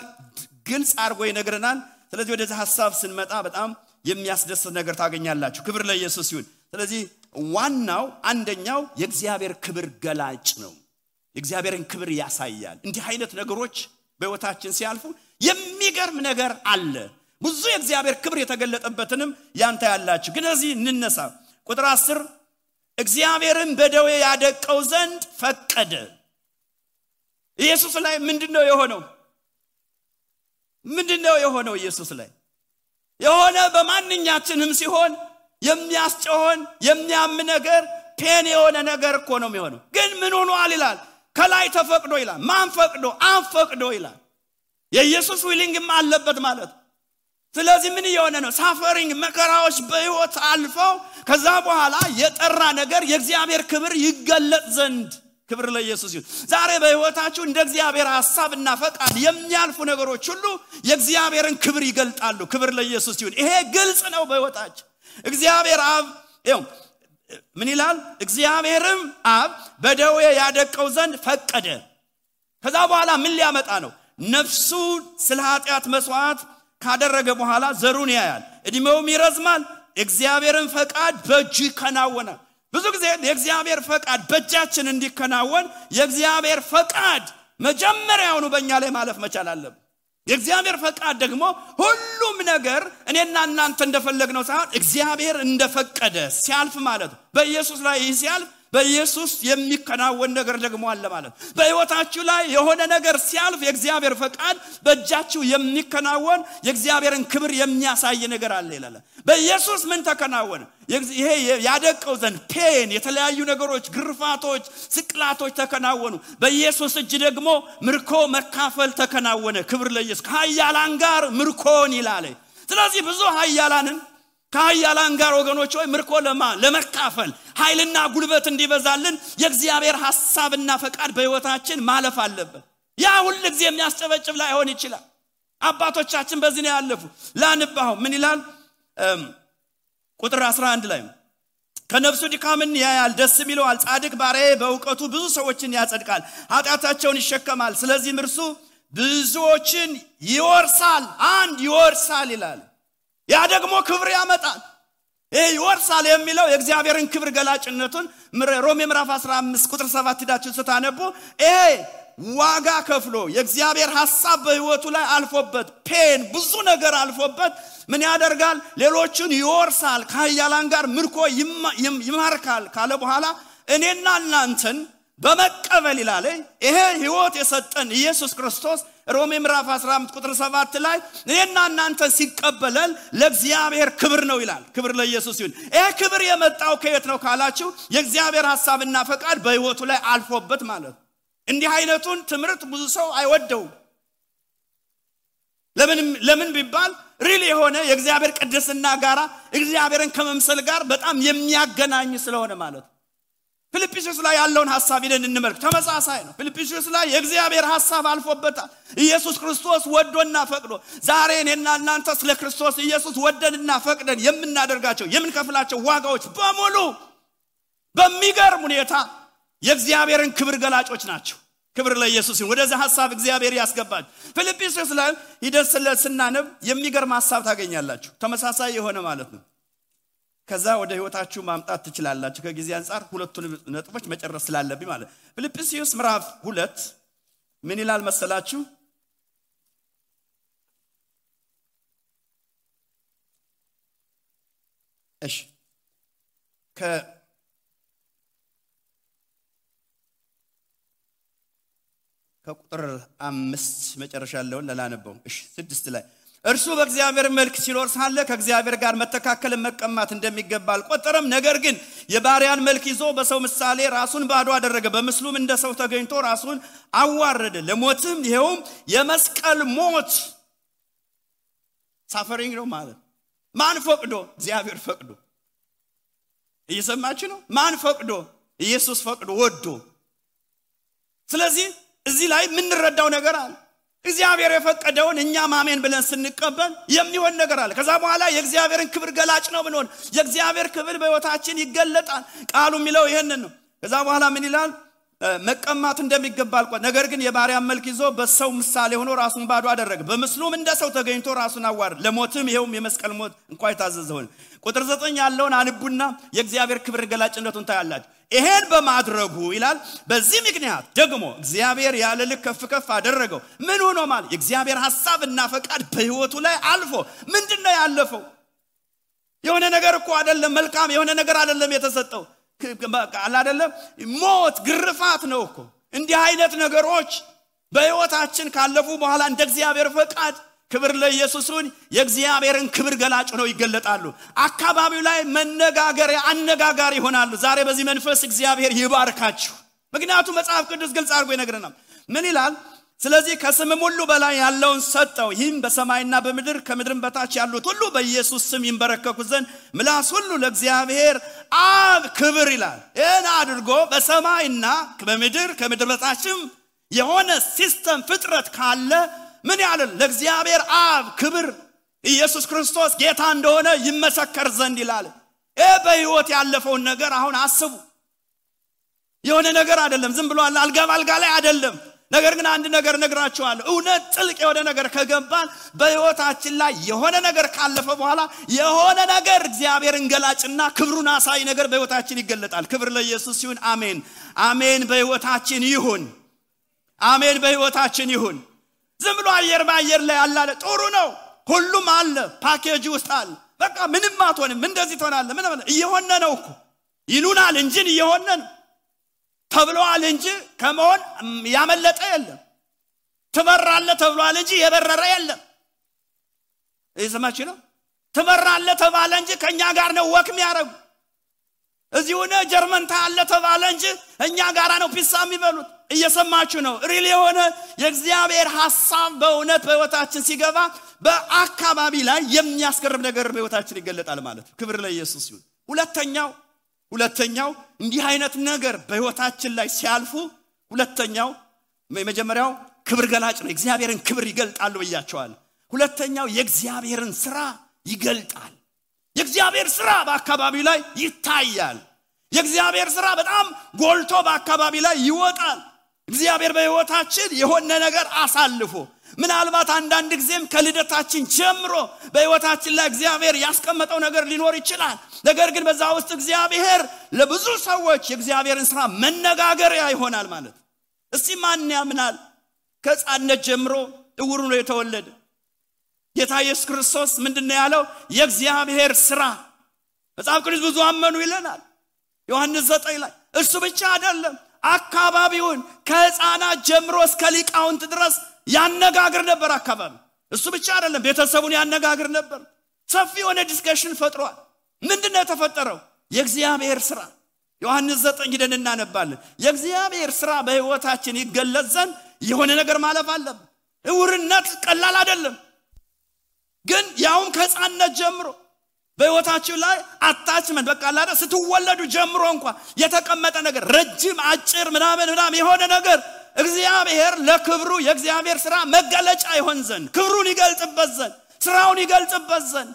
Speaker 1: ግልጽ አድርጎ ይነግረናል ስለዚህ ወደዚህ ሐሳብ ስንመጣ በጣም የሚያስደስት ነገር ታገኛላችሁ ክብር ለኢየሱስ ይሁን ስለዚህ ዋናው አንደኛው የእግዚአብሔር ክብር ገላጭ ነው የእግዚአብሔርን ክብር ያሳያል እንዲህ አይነት ነገሮች በህይወታችን ሲያልፉ የሚገርም ነገር አለ ብዙ የእግዚአብሔር ክብር የተገለጠበትንም ያንተ ያላችሁ ግን እዚህ እንነሳ ቁጥር 10 እግዚአብሔርን በደዌ ያደቀው ዘንድ ፈቀደ ኢየሱስ ላይ ምንድነው የሆነው ኢየሱስ ላይ የሆነ በማንኛችንም ሲሆን የሚያስጨሆን የሚያም ነገር ፔን የሆነ ነገር እኮ ነው የሚሆነው ግን ምን ሆኗል ይላል ከላይ ተፈቅዶ ይላል ማን ፈቅዶ አንፈቅዶ ይላል የኢየሱስ ዊሊንግም አለበት ማለት ስለዚህ ምን የሆነ ነው ሳፈሪንግ መከራዎች በህይወት አልፈው ከዛ በኋላ የጠራ ነገር የእግዚአብሔር ክብር ይገለጥ ዘንድ ክብር ለኢየሱስ ይሁን ዛሬ በህይወታችሁ እንደ እግዚአብሔር ሐሳብና ፈቃድ የሚያልፉ ነገሮች ሁሉ የእግዚአብሔርን ክብር ይገልጣሉ ክብር ለኢየሱስ ይሁን ይሄ ግልጽ ነው በህይወታችሁ እግዚአብሔር አብ ምን ይላል እግዚአብሔርም አብ በደዌ ያደቀው ዘንድ ፈቀደ ከዛ በኋላ ምን ሊያመጣ ነው ነፍሱ ስለ ኃጢአት መስዋዕት ካደረገ በኋላ ዘሩን ያያል እድሜውም ይረዝማል እግዚአብሔርን ፈቃድ በእጁ ይከናወናል ብዙ ጊዜ የእግዚአብሔር ፈቃድ በእጃችን እንዲከናወን የእግዚአብሔር ፈቃድ መጀመሪያውኑ በእኛ ላይ ማለፍ መቻል አለበት የእግዚአብሔር ፈቃድ ደግሞ ሁሉም ነገር እኔና እናንተ እንደፈለግነው ሳይሆን እግዚአብሔር እንደፈቀደ ሲያልፍ ማለት በኢየሱስ ላይ ሲያልፍ በኢየሱስ የሚከናወን ነገር ደግሞ አለ ማለት በህይወታችሁ ላይ የሆነ ነገር ሲያልፍ የእግዚአብሔር ፈቃድ በእጃችሁ የሚከናወን የእግዚአብሔርን ክብር የሚያሳይ ነገር አለ ይላል በኢየሱስ ምን ተከናወነ ይሄ ያደቀው ዘንድ ፔን የተለያዩ ነገሮች ግርፋቶች ስቅላቶች ተከናወኑ በኢየሱስ እጅ ደግሞ ምርኮ መካፈል ተከናወነ ክብር ለኢየሱስ ከኃያላን ጋር ምርኮን ይላል ስለዚህ ብዙ ኃያላንን ከኃያላን ጋር ወገኖች ሆይ ምርኮ ለመካፈል ኃይልና ጉልበት እንዲበዛልን የእግዚአብሔር ሐሳብና ፈቃድ በህይወታችን ማለፍ አለበት ያ ሁሉ ጊዜ የሚያስጨበጭብ ላይ ሆን ይችላል አባቶቻችን በዚህ ነው ያለፉ ላንባው ምን ይላል ቁጥር 11 ላይ ከነፍሱ ድካምን ያያል ደስ ይለዋል ጻድቅ ባሪያዬ በእውቀቱ ብዙ ሰዎችን ያጸድቃል ኃጢአታቸውን ይሸከማል ስለዚህ እርሱ ብዙዎችን ይወርሳል አንድ ይወርሳል ይላል ያ ደግሞ ክብር ያመጣል ይወርሳል የሚለው የእግዚአብሔርን ክብር ገላጭነቱን ሮሜ ምዕራፍ 15 ቁጥር 7 ሄዳችሁ ስታነቡ ዋጋ ከፍሎ የእግዚአብሔር ሐሳብ በህይወቱ ላይ አልፎበት ፔን ብዙ ነገር አልፎበት ምን ያደርጋል ሌሎችን ይወርሳል ከኃያላን ጋር ምርኮ ይማርካል ካለ በኋላ እኔና እናንተን በመቀበል ይላል ይሄ ህይወት የሰጠን ኢየሱስ ክርስቶስ ሮሜ ምዕራፍ 15 ቁጥር 7 ላይ እኔና እናንተ ሲቀበለን ለእግዚአብሔር ክብር ነው ይላል ክብር ለኢየሱስ ይሁን ይሄ ክብር የመጣው ከየት ነው ካላችሁ የእግዚአብሔር ሐሳብና ፈቃድ በህይወቱ ላይ አልፎበት ማለት እንዲህ አይነቱን ትምርት ብዙ ሰው አይወደው ለምን ቢባል ሪሊ የሆነ የእግዚአብሔር ቅድስና ጋራ እግዚአብሔርን ከመምሰል ጋር በጣም የሚያገናኝ ስለሆነ ማለት ፊልጵስዩስ ላይ ያለውን ሐሳብ ይደን እንመልክ ተመሳሳይ ነው ፊልጵስዩስ ላይ የእግዚአብሔር ሐሳብ አልፎበታል ኢየሱስ ክርስቶስ ወዶና ፈቅዶ ዛሬ እኔና እናንተ ስለ ክርስቶስ ኢየሱስ ወደንና ፈቅደን የምናደርጋቸው የምንከፍላቸው ዋጋዎች በሙሉ በሚገርም ሁኔታ የእግዚአብሔርን ክብር ገላጮች ናቸው ክብር ለኢየሱስ ይሁን ወደዛ ሐሳብ እግዚአብሔር ያስገባል ፊልጵስዩስ ላይ ይደስለ ስናነብ የሚገርም ሐሳብ ታገኛላችሁ ተመሳሳይ የሆነ ማለት ነው ከዛ ወደ ህይወታችሁ ማምጣት ትችላላችሁ ከጊዜ አንፃር ሁለቱን ነጥቦች መጨረስ ስላለብኝ ማለት ፊልጵስዩስ ምዕራፍ 2 ምን ይላል መሰላችሁ እሺ ከቁጥር 5 መጨረሻ ያለውን ለላነበው እሺ 6 ላይ እርሱ በእግዚአብሔር መልክ ሲኖር ሳለ ከእግዚአብሔር ጋር መተካከል መቀማት እንደሚገባ አልቆጠረም ነገር ግን የባሪያን መልክ ይዞ በሰው ምሳሌ ራሱን ባዶ አደረገ በምስሉም እንደ ሰው ተገኝቶ ራሱን አዋረደ ለሞትም ይሄውም የመስቀል ሞት ሳፈሪንግ ነው ማለት ማን ፈቅዶ እግዚአብሔር ፈቅዶ እየሰማችሁ ነው ማን ፈቅዶ ኢየሱስ ፈቅዶ ወዶ ስለዚህ እዚህ ላይ ምን እንረዳው ነገር አለ እግዚአብሔር የፈቀደውን እኛ ማመን ብለን ስንቀበል የሚሆን ነገር አለ ከዛ በኋላ የእግዚአብሔርን ክብር ገላጭ ነው ብንሆን የእግዚአብሔር ክብር በህይወታችን ይገለጣል ቃሉ የሚለው ይሄንን ነው ከዛ በኋላ ምን ይላል መቀማት እንደሚገባ አልቆጠረም ነገር ግን የባሪያን መልክ ይዞ በሰው ምሳሌ ሆኖ ራሱን ባዶ አደረገ በምስሉም እንደ ሰው ተገኝቶ ራሱን አዋረደ ለሞትም ይሄውም የመስቀል ሞት እንኳን የታዘዘው ቁጥር 9 ያለውን አንቡና የእግዚአብሔር ክብር ገላጭነቱን ታያላችሁ ይሄን በማድረጉ ይላል በዚህ ምክንያት ደግሞ እግዚአብሔር ያለ ልክ ከፍ አደረገው ምን ሆኖ ማለት የእግዚአብሔር ሐሳብና ፈቃድ በህይወቱ ላይ አልፎ ምንድነው ያለፈው የሆነ ነገር እኮ አይደለም መልካም የሆነ ነገር አይደለም የተሰጠው ቃል አይደለም ሞት ግርፋት ነው እኮ እንዲህ አይነት ነገሮች በህይወታችን ካለፉ በኋላ እንደ እግዚአብሔር ፈቃድ ክብር ለኢየሱስን የእግዚአብሔርን ክብር ገላጭ ነው ይገለጣሉ አካባቢው ላይ መነጋገር አነጋጋሪ ይሆናሉ ዛሬ በዚህ መንፈስ እግዚአብሔር ይባርካችሁ ምክንያቱም መጽሐፍ ቅዱስ ግልጽ አድርጎ ይነግረናል ምን ይላል ስለዚህ ከስምም ሁሉ በላይ ያለውን ሰጠው ይህም በሰማይና በምድር ከምድርም በታች ያሉት ሁሉ በኢየሱስ ስም ይንበረከኩ ዘንድ ምላስ ሁሉ ለእግዚአብሔር አብ ክብር ይላል እና አድርጎ በሰማይና በምድር ከምድር በታችም የሆነ ሲስተም ፍጥረት ካለ ምን ያለ ለእግዚአብሔር አብ ክብር ኢየሱስ ክርስቶስ ጌታ እንደሆነ ይመሰከር ዘንድ ይላል በህይወት ያለፈውን ነገር አሁን አስቡ የሆነ ነገር አይደለም ዝም ብሎ አልጋ ላይ አይደለም ነገር ግን አንድ ነገር ነግራችኋለሁ እውነት ጥልቅ የሆነ ነገር ከገባን በህይወታችን ላይ የሆነ ነገር ካለፈ በኋላ የሆነ ነገር እግዚአብሔርን ገላጭና ክብሩን አሳይ ነገር በህይወታችን ይገለጣል ክብር ለኢየሱስ ይሁን አሜን አሜን በህይወታችን ይሁን አሜን በህይወታችን ይሁን ዝም ብሎ አየር ባየር ላይ አላለ ጥሩ ነው ሁሉም አለ ፓኬጅ ውስጥ አለ በቃ ምንም አትሆንም እንደዚህ ትሆናለህ ምን እየሆነ ነው እኮ ይሉናል እንጂ እየሆነ ነው ተብሏል እንጂ ከመሆን ያመለጠ የለም ትበራለህ ተብሏል እንጂ የበረረ የለም እየሰማችሁ ነው ትበራለህ ተባለ እንጂ ከኛ ጋር ነው ወክ የሚያረጉ እዚህ ሆነ ጀርመን ታለ ተባለ እንጂ እኛ ጋራ ነው ፒሳ የሚበሉት እየሰማችሁ ነው ሪሊ የሆነ የእግዚአብሔር ሐሳብ በእውነት በህይወታችን ሲገባ በአካባቢ ላይ የሚያስገርም ነገር በህይወታችን ይገለጣል ማለት ክብር ለኢየሱስ ይሁን ሁለተኛው እንዲህ አይነት ነገር በህይወታችን ላይ ሲያልፉ ሁለተኛው የመጀመሪያው ክብር ገላጭ ነው እግዚአብሔርን ክብር ይገልጣሉ ብያቸዋል ሁለተኛው የእግዚአብሔርን ሥራ ይገልጣል የእግዚአብሔር ሥራ በአካባቢው ላይ ይታያል የእግዚአብሔር ሥራ በጣም ጎልቶ በአካባቢ ላይ ይወጣል እግዚአብሔር በህይወታችን የሆነ ነገር አሳልፎ ምናልባት አንዳንድ ጊዜም ከልደታችን ጀምሮ በህይወታችን ላይ እግዚአብሔር ያስቀመጠው ነገር ሊኖር ይችላል ነገር ግን በዛ ውስጥ እግዚአብሔር ለብዙ ሰዎች የእግዚአብሔርን ሥራ መነጋገሪያ ይሆናል ማለት እስቲ ማን ያምናል ከጻነት ጀምሮ እውሩ ነው የተወለደ ጌታ ኢየሱስ ክርስቶስ ምንድነው ያለው የእግዚአብሔር ሥራ መጽሐፍ ቅዱስ ብዙ አመኑ ይለናል ዮሐንስ 9 ላይ እሱ ብቻ አይደለም አካባቢውን ከህፃናት ጀምሮ እስከ ሊቃውንት ድረስ ያነጋግር ነበር አካባቢ እሱ ብቻ አይደለም ቤተሰቡን ያነጋግር ነበር ሰፊ የሆነ ዲስከሽን ፈጥሯል ምንድነው የተፈጠረው የእግዚአብሔር ሥራ ዮሐንስ 9 ሄደን እናነባለን የእግዚአብሔር ሥራ በህይወታችን ይገለጽ ዘንድ የሆነ ነገር ማለፍ አለበት እውርነት ቀላል አይደለም ግን ያውም ከህፃንነት ጀምሮ በህይወታችሁ ላይ አታችመንት በቃ አላደ ስትወለዱ ጀምሮ እንኳን የተቀመጠ ነገር ረጅም አጭር ምናምን የሆነ ነገር እግዚአብሔር ለክብሩ የእግዚአብሔር ሥራ መገለጫ ይሆን ዘንድ ክብሩን ይገልጥበት ዘንድ ሥራውን ይገልጥበት ዘንድ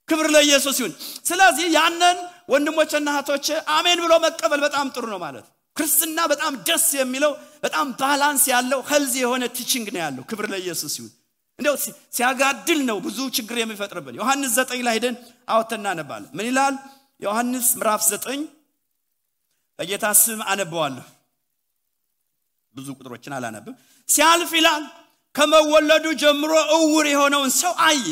Speaker 1: ክብር ለኢየሱስ ይሁን ስለዚህ ያንን ወንድሞችና እህቶች አሜን ብሎ መቀበል በጣም ጥሩ ነው ማለት ክርስትና በጣም ደስ የሚለው በጣም ባላንስ ያለው ሄልዚ የሆነ ቲቺንግ ነው ያለው ክብር ለኢየሱስ ይሁን እንደው ሲያጋድል ነው ብዙ ችግር የሚፈጥርብን ዮሐንስ 9 ላይ ሄደን አውጥተና ነባለ ምን ይላል ዮሐንስ ምዕራፍ 9 በጌታ ስም አነበዋለሁ ብዙ ቁጥሮችን አላነብም ሲያልፍ ይላል ከመወለዱ ጀምሮ እውር የሆነውን ሰው አየ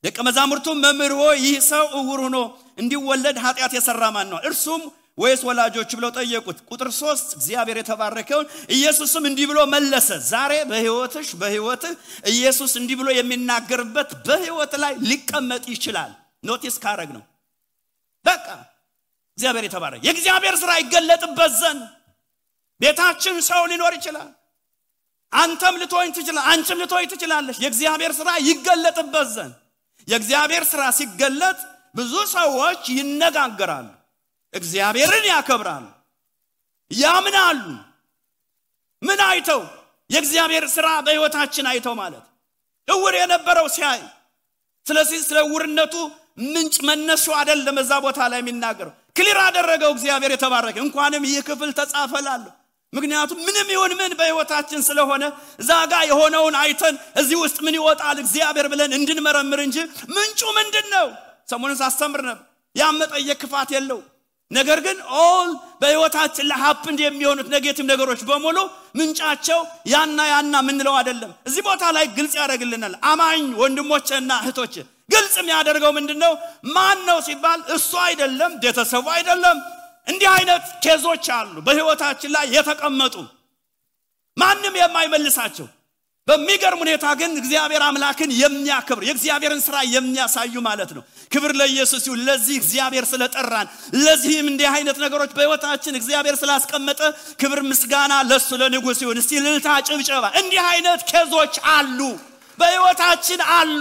Speaker 1: ደቀ መዛሙርቱ መምህር ሆይ ይህ ሰው እውር ሆኖ እንዲወለድ ኃጢአት የሰራ ማን ነው እርሱም ወይስ ወላጆቹ ብለው ጠየቁት ቁጥር 3 እግዚአብሔር የተባረከው ኢየሱስም እንዲህ ብሎ መለሰ ዛሬ በህይወትህ ኢየሱስ እንዲህ ብሎ የሚናገርበት በህይወት ላይ ሊቀመጥ ይችላል ኖቲስ ካረግ ነው በቃ እግዚአብሔር የተባረከ የእግዚአብሔር ሥራ ይገለጥበት ዘንድ ቤታችን ሰው ሊኖር ይችላል አንተም ልትሆን ትችላለህ አንቺም ልትሆን ትችላለሽ የእግዚአብሔር ሥራ ይገለጥበት ዘንድ የእግዚአብሔር ሥራ ሲገለጥ ብዙ ሰዎች ይነጋገራሉ እግዚአብሔርን ያከብራሉ ያምናሉ ምን አይተው የእግዚአብሔር ሥራ በህይወታችን አይተው ማለት እውር የነበረው ሲያይ ስለዚህ ስለ እውርነቱ ምንጭ መነሻ አይደለም እዛ ቦታ ላይ የሚናገረው ክሊር አደረገው እግዚአብሔር የተባረከ እንኳንም ይህ ክፍል ተጻፈላል ምክንያቱም ምንም ይሁን ምን በህይወታችን ስለሆነ ዛጋ የሆነውን አይተን እዚህ ውስጥ ምን ይወጣል እግዚአብሔር ብለን እንድንመረምር እንጂ ምንጩ ምንድነው ሰሞኑን ሳስተምር ነበር ያመጣየ ክፋት የለው ነገር ግን ኦል በህይወታችን ለሀፕንድ የሚሆኑት ኔጌቲቭ ነገሮች በሙሉ ምንጫቸው ያና ምንለው አይደለም እዚህ ቦታ ላይ ግልጽ ያደርግልናል አማኝ ወንድሞቼና እህቶቼ ግልጽ የሚያደርገው ምንድነው ማን ነው ሲባል እሱ አይደለም ቤተሰቡ አይደለም እንዲህ አይነት ኬዞች አሉ በህይወታችን ላይ የተቀመጡ ማንንም የማይመልሳቸው በሚገርም ሁኔታ ግን እግዚአብሔር አምላክን የሚያከብር የእግዚአብሔርን ሥራ የሚያሳዩ ማለት ነው ክብር ለኢየሱስ ይሁን ለዚህ እግዚአብሔር ስለጠራን ለዚህም እንዲህ አይነት ነገሮች በህይወታችን እግዚአብሔር ስላስቀመጠ ክብር ምስጋና ለሱ ለንጉስ ይሁን እስቲ ልልታ ጭብጨባ እንዲህ አይነት ኬዞች አሉ በህይወታችን አሉ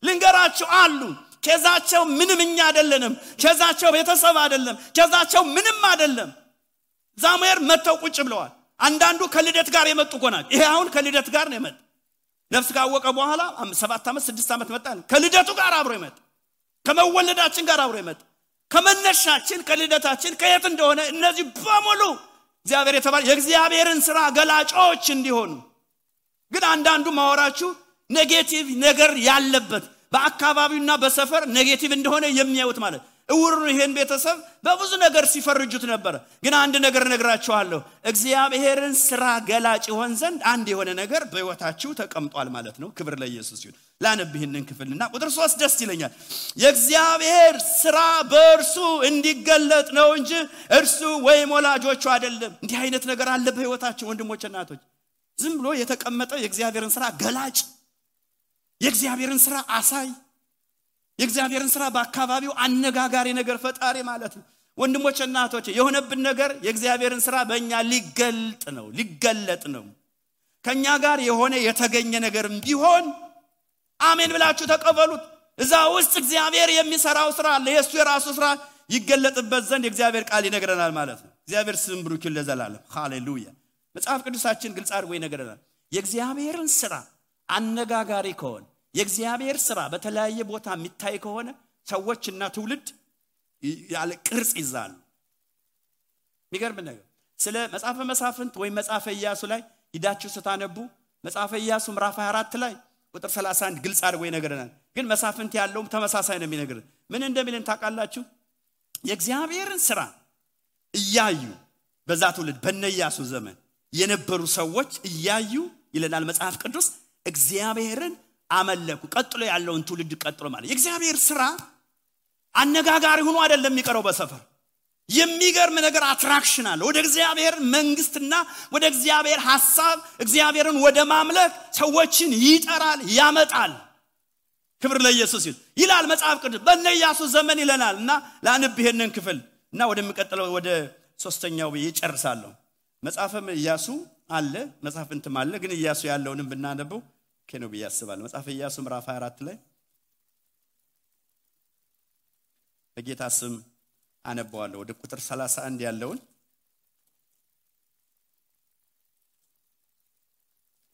Speaker 1: ልንገራችሁ አሉ ኬዛቸው ምንምኛ አይደለም ኬዛቸው ቤተሰብ አይደለም ኬዛቸው ምንም አይደለም ዛሙኤል መተው ቁጭ ብለዋል አንዳንዱ ከልደት ጋር የመጡ ቆናል ይሄ አሁን ከልደት ጋር ነው የመጣ ነፍስ ካወቀ በኋላ 7 ዓመት 6 ዓመት መጣ ከልደቱ ጋር አብሮ ይመጣ ከመወለዳችን ጋር አብሮ ይመጣ ከመነሻችን ከልደታችን ከየት እንደሆነ እነዚህ በሙሉ እግዚአብሔር የተባለ የእግዚአብሔርን ሥራ ገላጮች እንዲሆኑ ግን አንዳንዱ ማወራችሁ ኔጌቲቭ ነገር ያለበት በአካባቢውና በሰፈር ኔጌቲቭ እንደሆነ የሚያዩት ማለት እውር ይሄን ቤተሰብ በብዙ ነገር ሲፈርጁት ነበር ግን አንድ ነገር ነግራችኋለሁ እግዚአብሔርን ሥራ ገላጭ ይሆን ዘንድ አንድ የሆነ ነገር በህይወታችሁ ተቀምጧል ማለት ነው ክብር ለኢየሱስ ይሁን ላነብህንን ክፍልና ቁጥር 3 ደስ ይለኛል የእግዚአብሔር ሥራ በእርሱ እንዲገለጥ ነው እንጂ እርሱ ወይም ወላጆቹ አይደለም እንዲህ አይነት ነገር አለ በህይወታችን ወንድሞች እናቶች ዝም ብሎ የተቀመጠ የእግዚአብሔርን ሥራ ገላጭ የእግዚአብሔርን ሥራ አሳይ የእግዚአብሔርን ሥራ በአካባቢው አነጋጋሪ ነገር ፈጣሪ ማለት ነው ወንድሞች እናቶች የሆነብን ነገር የእግዚአብሔርን ሥራ በእኛ ሊገለጥ ነው ከኛ ጋር የሆነ የተገኘ ነገርም ቢሆን አሜን ብላችሁ ተቀበሉት እዛ ውስጥ እግዚአብሔር የሚሰራው ሥራ አለ የሱ የራሱ ሥራ ይገለጥበት ዘንድ የእግዚአብሔር ቃል ይነግረናል ማለት ነው እግዚአብሔር ስም ብሩክ ይሁን ለዘላለም ሃሌሉያ መጽሐፍ ቅዱሳችን ግልጽ አድርጎ ይነግረናል የእግዚአብሔርን ሥራ አነጋጋሪ ከሆነ የእግዚአብሔር ሥራ በተለያየ ቦታ የሚታይ ከሆነ ሰዎችና ትውልድ ያለ ቅርጽ ይዛሉ የሚገርም ነገር ስለ መጽሐፈ መሳፍንት ወይ መጽሐፈ ኢያሱ ላይ ሂዳችሁ ስታነቡ መጽሐፈ ኢያሱ ምዕራፍ 24 ላይ ቁጥር 31 ግልጽ አድርጎ ይነግረናል ግን መሳፍንት ያለውም ተመሳሳይ ነው የሚነግረን ምን እንደሚልን ታውቃላችሁ የእግዚአብሔርን ሥራ እያዩ በዛ ትውልድ በነ ኢያሱ ዘመን የነበሩ ሰዎች እያዩ ይለናል መጽሐፍ ቅዱስ እግዚአብሔርን አመለኩ ቀጥሎ ያለውን ትውልድ ቀጥሎ ማለት የእግዚአብሔር ሥራ አነጋጋሪ ሆኖ አይደለም የሚቀረው በሰፈር የሚገርም ነገር አትራክሽን አለ ወደ እግዚአብሔር መንግስትና ወደ እግዚአብሔር ሐሳብ እግዚአብሔርን ወደ ማምለክ ሰዎችን ይጠራል ያመጣል ክብር ለኢየሱስ ይላል መጽሐፍ ቅዱስ በነ ኢያሱ ዘመን ይለናልና ላንብ ይሄንን ክፍል እና ወደሚቀጥለው ወደ ሶስተኛው ይጨርሳለሁ መጽሐፈ ኢያሱ አለ መጽሐፍንትም አለ ግን ኢያሱ ያለውንም ብናነበው ከነው በያስባል መጽሐፈ ኢያሱ ምዕራፍ 24 ላይ በጌታ ስም አነባዋለሁ ወደ ቁጥር 31 ያለውን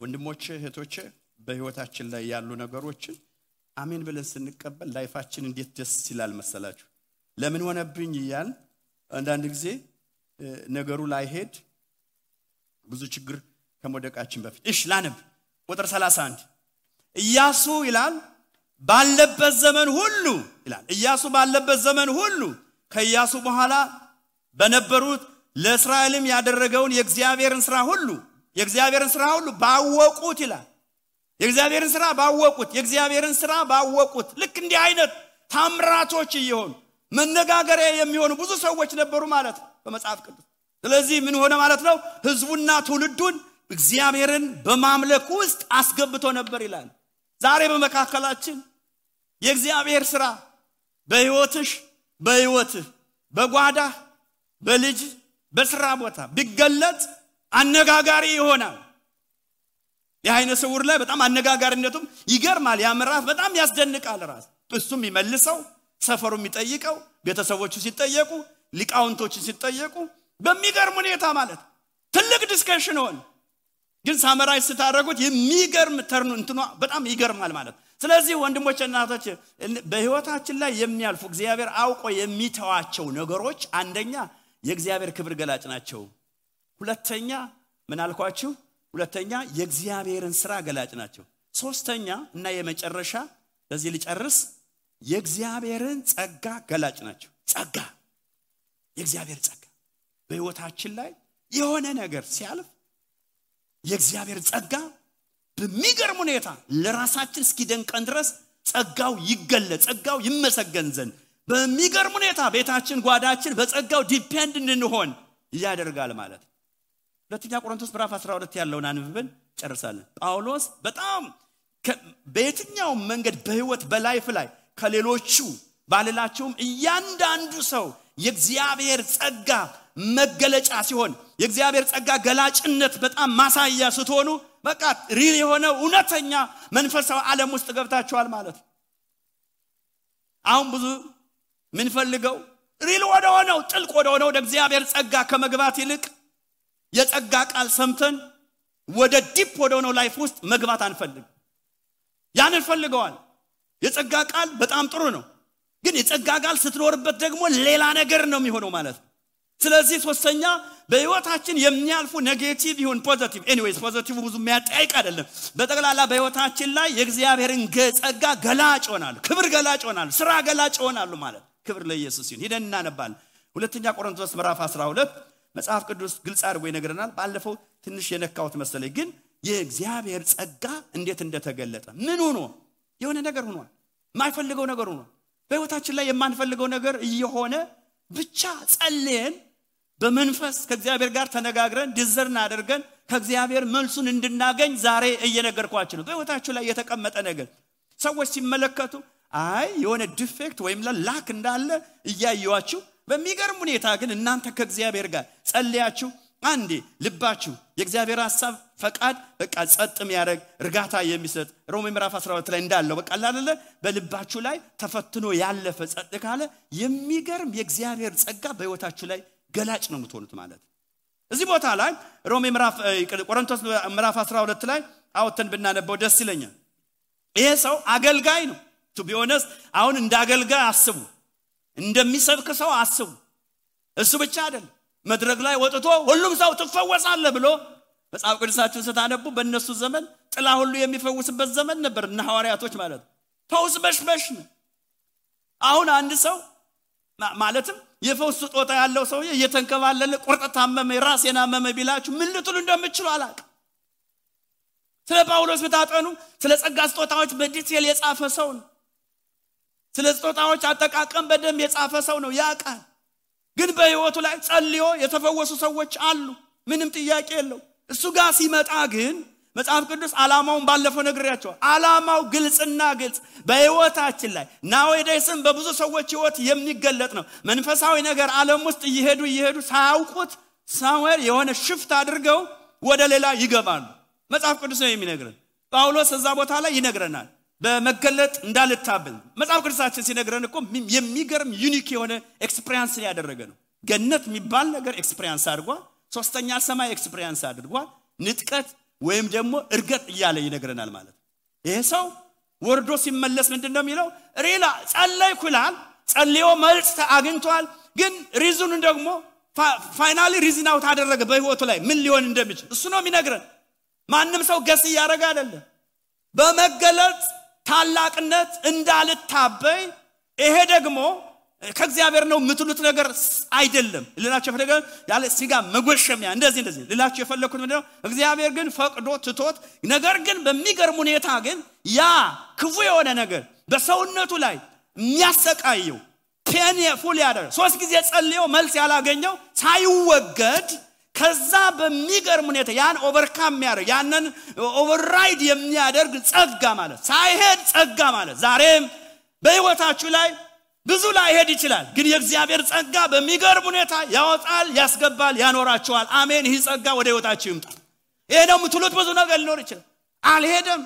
Speaker 1: ወንድሞቼ እህቶቼ በህይወታችን ላይ ያሉ ነገሮችን አሜን ብለን ስንቀበል ላይፋችን እንዴት ደስ ይላል መሰላችሁ ለምን ሆነብኝ ይያል አንዳንድ ጊዜ ነገሩ ላይ ሄድ ብዙ ችግር ከመደቃችን በፊት እሺ ላነብ ቁጥር 31 ኢያሱ ይላል ባለበት ዘመን ሁሉ ይላል ኢያሱ ባለበት ዘመን ሁሉ ከኢያሱ በኋላ በነበሩት ለእስራኤልም ያደረገውን የእግዚአብሔርን ሥራ ሁሉ ባወቁት ይላል የእግዚአብሔርን ሥራ ባወቁት ልክ እንዲህ አይነት ታምራቶች ይሆኑ መነጋገሪያ የሚሆኑ ብዙ ሰዎች ነበሩ ማለት ነው በመጽሐፍ ቅዱስ ስለዚህ ምን ሆነ ማለት ነው ህዝቡና ትውልዱን እግዚአብሔርን በማምለክ ውስጥ አስገብቶ ነበር ይላል ዛሬ በመካከላችን የእግዚአብሔር ሥራ በህይወትህ በጓዳህ በልጅ በሥራ ቦታ ቢገለጥ አነጋጋሪ ይሆናል የአይነ ስውር ላይ በጣም አነጋጋሪነቱም ይገርማል ያምራፍ በጣም ያስደንቃል ራስ እሱም ይመልሰው ሰፈሩ የሚጠይቀው ቤተሰቦቹ ሲጠየቁ ሊቃውንቶቹ ሲጠየቁ በሚገርም ሁኔታ ማለት ትልቅ ዲስከሽን ሆነ ግን ሳመራይ ስታረጉት የሚገርም ተርኑ እንትኑ በጣም ይገርማል ማለት ስለዚህ ወንድሞችና እህቶች በህይወታችን ላይ የሚያልፉ እግዚአብሔር አውቆ የሚተዋቸው ነገሮች አንደኛ የእግዚአብሔር ክብር ገላጭ ናቸው ሁለተኛ ምን አልኳችሁ ሁለተኛ የእግዚአብሔርን ሥራ ገላጭ ናቸው ሶስተኛ እና የመጨረሻ ለዚህ ልጨርስ የእግዚአብሔርን ጸጋ ገላጭ ናቸው የእግዚአብሔር ጸጋ በህይወታችን ላይ የሆነ ነገር ሲያልፍ የእግዚአብሔር ጸጋ በሚገርም ሁኔታ ለራሳችን እስኪደንቀን ድረስ ጸጋው ይገለጽ ጸጋው ይመሰገን ዘንድ በሚገርም ሁኔታ ቤታችን ጓዳችን በጸጋው ዲፔንድ እንሆን ያደርጋል ማለት ሁለተኛ ቆሮንቶስ ምዕራፍ 12 ያለውን አንብበን ጨርሳለን ጳውሎስ በጣም በየትኛው መንገድ በህይወት በላይፍ ላይ ከሌሎቹ ባልላቸውም እያንዳንዱ ሰው የእግዚአብሔር ጸጋ መገለጫ ሲሆን የእግዚአብሔር ጸጋ ገላጭነት በጣም ማሳያ ስትሆኑ በቃ ሪል የሆነ እውነተኛ መንፈሳዊ ዓለም ውስጥ ገብታችኋል ማለት አሁን ብዙ ምን ፈልገው ሪል ወደሆነው ጥልቅ ወደሆነው እግዚአብሔር ጸጋ ከመግባት ይልቅ የጸጋ ቃል ሰምተን ወደ ዲፕ ወደሆነው ላይፍ ውስጥ መግባት አንፈልግ ያንን ፈልገዋል የጸጋ ቃል በጣም ጥሩ ነው ግን የጸጋ ቃል ስትኖርበት ደግሞ ሌላ ነገር ነው የሚሆነው ማለት ስለዚህ ሶስተኛ በህይወታችን የሚያልፉ ኔጌቲቭ ይሁን ፖዚቲቭ ኤኒዌይስ ፖዚቲቭ ብዙ የሚያጠያይቅ አይደለም በጠቅላላ በህይወታችን ላይ የእግዚአብሔርን ጸጋ ገላጭ ሆናል ክብር ገላጭ ሆናል ሥራ ገላጭ ሆናሉ ማለት ክብር ለኢየሱስ ይሁን ሄደን እናነባለን ሁለተኛ ቆሮንቶስ ምዕራፍ 12 መጽሐፍ ቅዱስ ግልጽ አድርጎ ይነግረናል ባለፈው ትንሽ የነካውት መሰለኝ ግን የእግዚአብሔር ጸጋ እንዴት እንደተገለጠ ምን ሆኖ የሆነ ነገር ሆኗል ማይፈልገው ነገር ሆኗል በህይወታችን ላይ የማንፈልገው ነገር እየሆነ ብቻ ጸልየን በመንፈስ ከእግዚአብሔር ጋር ተነጋግረን ዲዘርን አድርገን ከእግዚአብሔር መልሱን እንድናገኝ ዛሬ እየነገርኳችሁ ነው በህይወታችሁ ላይ የተቀመጠ ነገር ሰዎች ሲመለከቱ አይ የሆነ ዲፌክት ወይም ላክ እንዳለ እያዩዋችሁ በሚገርም ሁኔታ ግን እናንተ ከእግዚአብሔር ጋር ጸልያችሁ አንዴ ልባችሁ የእግዚአብሔር ሐሳብ ፈቃድ በቃ ጸጥም ያረግ እርጋታ የሚሰጥ ሮሜ ምዕራፍ 12 ላይ እንዳለው በቃ አይደለ በልባችሁ ላይ ተፈትኖ ያለፈ ጸጥ ካለ የሚገርም የእግዚአብሔር ጸጋ በህይወታችሁ ላይ ገላጭ ነው የምትሆኑት ማለት እዚህ ቦታ ላይ ሮሜ ምዕራፍ ቆሮንቶስ ምዕራፍ 12 ላይ አውተን ብናነበው ደስ ይለኛል ይሄ ሰው አገልጋይ ነው to be honest አሁን እንዳገልጋይ አስቡ እንደሚሰብክ ሰው አስቡ እሱ ብቻ አይደለም መድረክ ላይ ወጥቶ ሁሉም ሰው ተፈወሳለ ብሎ መጽሐፍ ቅዱሳችን ስታነቡ በእነሱ ዘመን ጥላ ሁሉ የሚፈውስበት ዘመን ነበር እና ሐዋርያቶች ማለት ፈውስ በሽበሽ ነው አሁን አንድ ሰው ማለትም የፈውስ ስጦታ ያለው ሰው እየተንከባለለ ቁርጠት ታመመ ራስና መመ ቢላችሁ ምን ልትሉ እንደምትችሉ አላቅ ስለ ጳውሎስ ብታጠኑ ስለ ጸጋ ስጦታዎች በዲቴል የጻፈ ሰው ነው ስለ ስጦታዎች አጠቃቀም በደም የጻፈ ሰው ነው ያቃል ግን በህይወቱ ላይ ጸልዮ የተፈወሱ ሰዎች አሉ ምንም ጥያቄ የለው እሱ ጋር ሲመጣ ግን መጽሐፍ ቅዱስ ዓላማውን ባለፈው ነግሬያቸው ዓላማው ግልጽና ግልጽ በህይወታችን ላይ ናውዴስም በብዙ ሰዎች ህይወት የሚገለጥ ነው መንፈሳዊ ነገር ዓለም ውስጥ ይሄዱ ሳያውቁት ሳሙኤል የሆነ ሽፍት አድርገው ወደ ሌላ ይገባሉ መጽሐፍ ቅዱስ ነው የሚነግረን ጳውሎስ እዛ ቦታ ላይ ይነግረናል በመገለጥ እንዳልታበል መጽሐፍ ቅዱሳችን ሲነግረን እኮ የሚገርም ዩኒክ የሆነ ኤክስፒሪያንስ ያደረገ ነው ገነት የሚባል ነገር ኤክስፒሪያንስ አድርጓል ሶስተኛ ሰማይ ኤክስፒሪያንስ አድርጓል ንጥቀት ወይም ደግሞ እርገጥ ይያለ ይነግረናል ማለት ይሄ ሰው ወርዶ ሲመለስ ምንድነው የሚለው ሪላ ጸለይኩ ይላል ጸልዮ መልስ አግኝቷል ግን ሪዝኑ ደግሞ ፋይናሊ ሪዝን አውት አደረገ በህይወቱ ላይ ምን ሊሆን እንደሚችል እሱ ነው የሚነግረን ማንንም ሰው ገስ ያረጋ አይደለም በመገለጥ ታላቅነት እንዳልታበይ ይሄ ደግሞ ከእግዚአብሔር ነው ምትሉት ነገር አይደለም ልላችሁ ፈለገ ያለ ሲጋ መጎሸሚያ እንደዚህ ልላችሁ የፈለኩት ምንድነው እግዚአብሔር ግን ፈቅዶ ትቶት ነገር ግን በሚገርም ሁኔታ ግን ያ ክፉ የሆነ ነገር በሰውነቱ ላይ የሚያሰቃየው ፔንፉል ያደረገ 3 ጊዜ ጸልዮ መልስ ያላገኘው ሳይወገድ ከዛ በሚገርም ሁኔታ ያን ኦቨርካም ያደርግ ያንን ኦቨርራይድ የሚያደርግ ጸጋ ማለት ሳይሄድ ጸጋ ማለት ዛሬም በህይወታችሁ ላይ ብዙ ላይ ሄድ ይችላል ግን የእግዚአብሔር ጸጋ በሚገርም ሁኔታ ያወጣል ያስገባል ያኖራችኋል አሜን ይህ ጸጋ ወደ ህይወታችሁ ይምጣ ይሄ ነው ምትሉት ብዙ ነገር ሊኖር ይችላል አልሄደም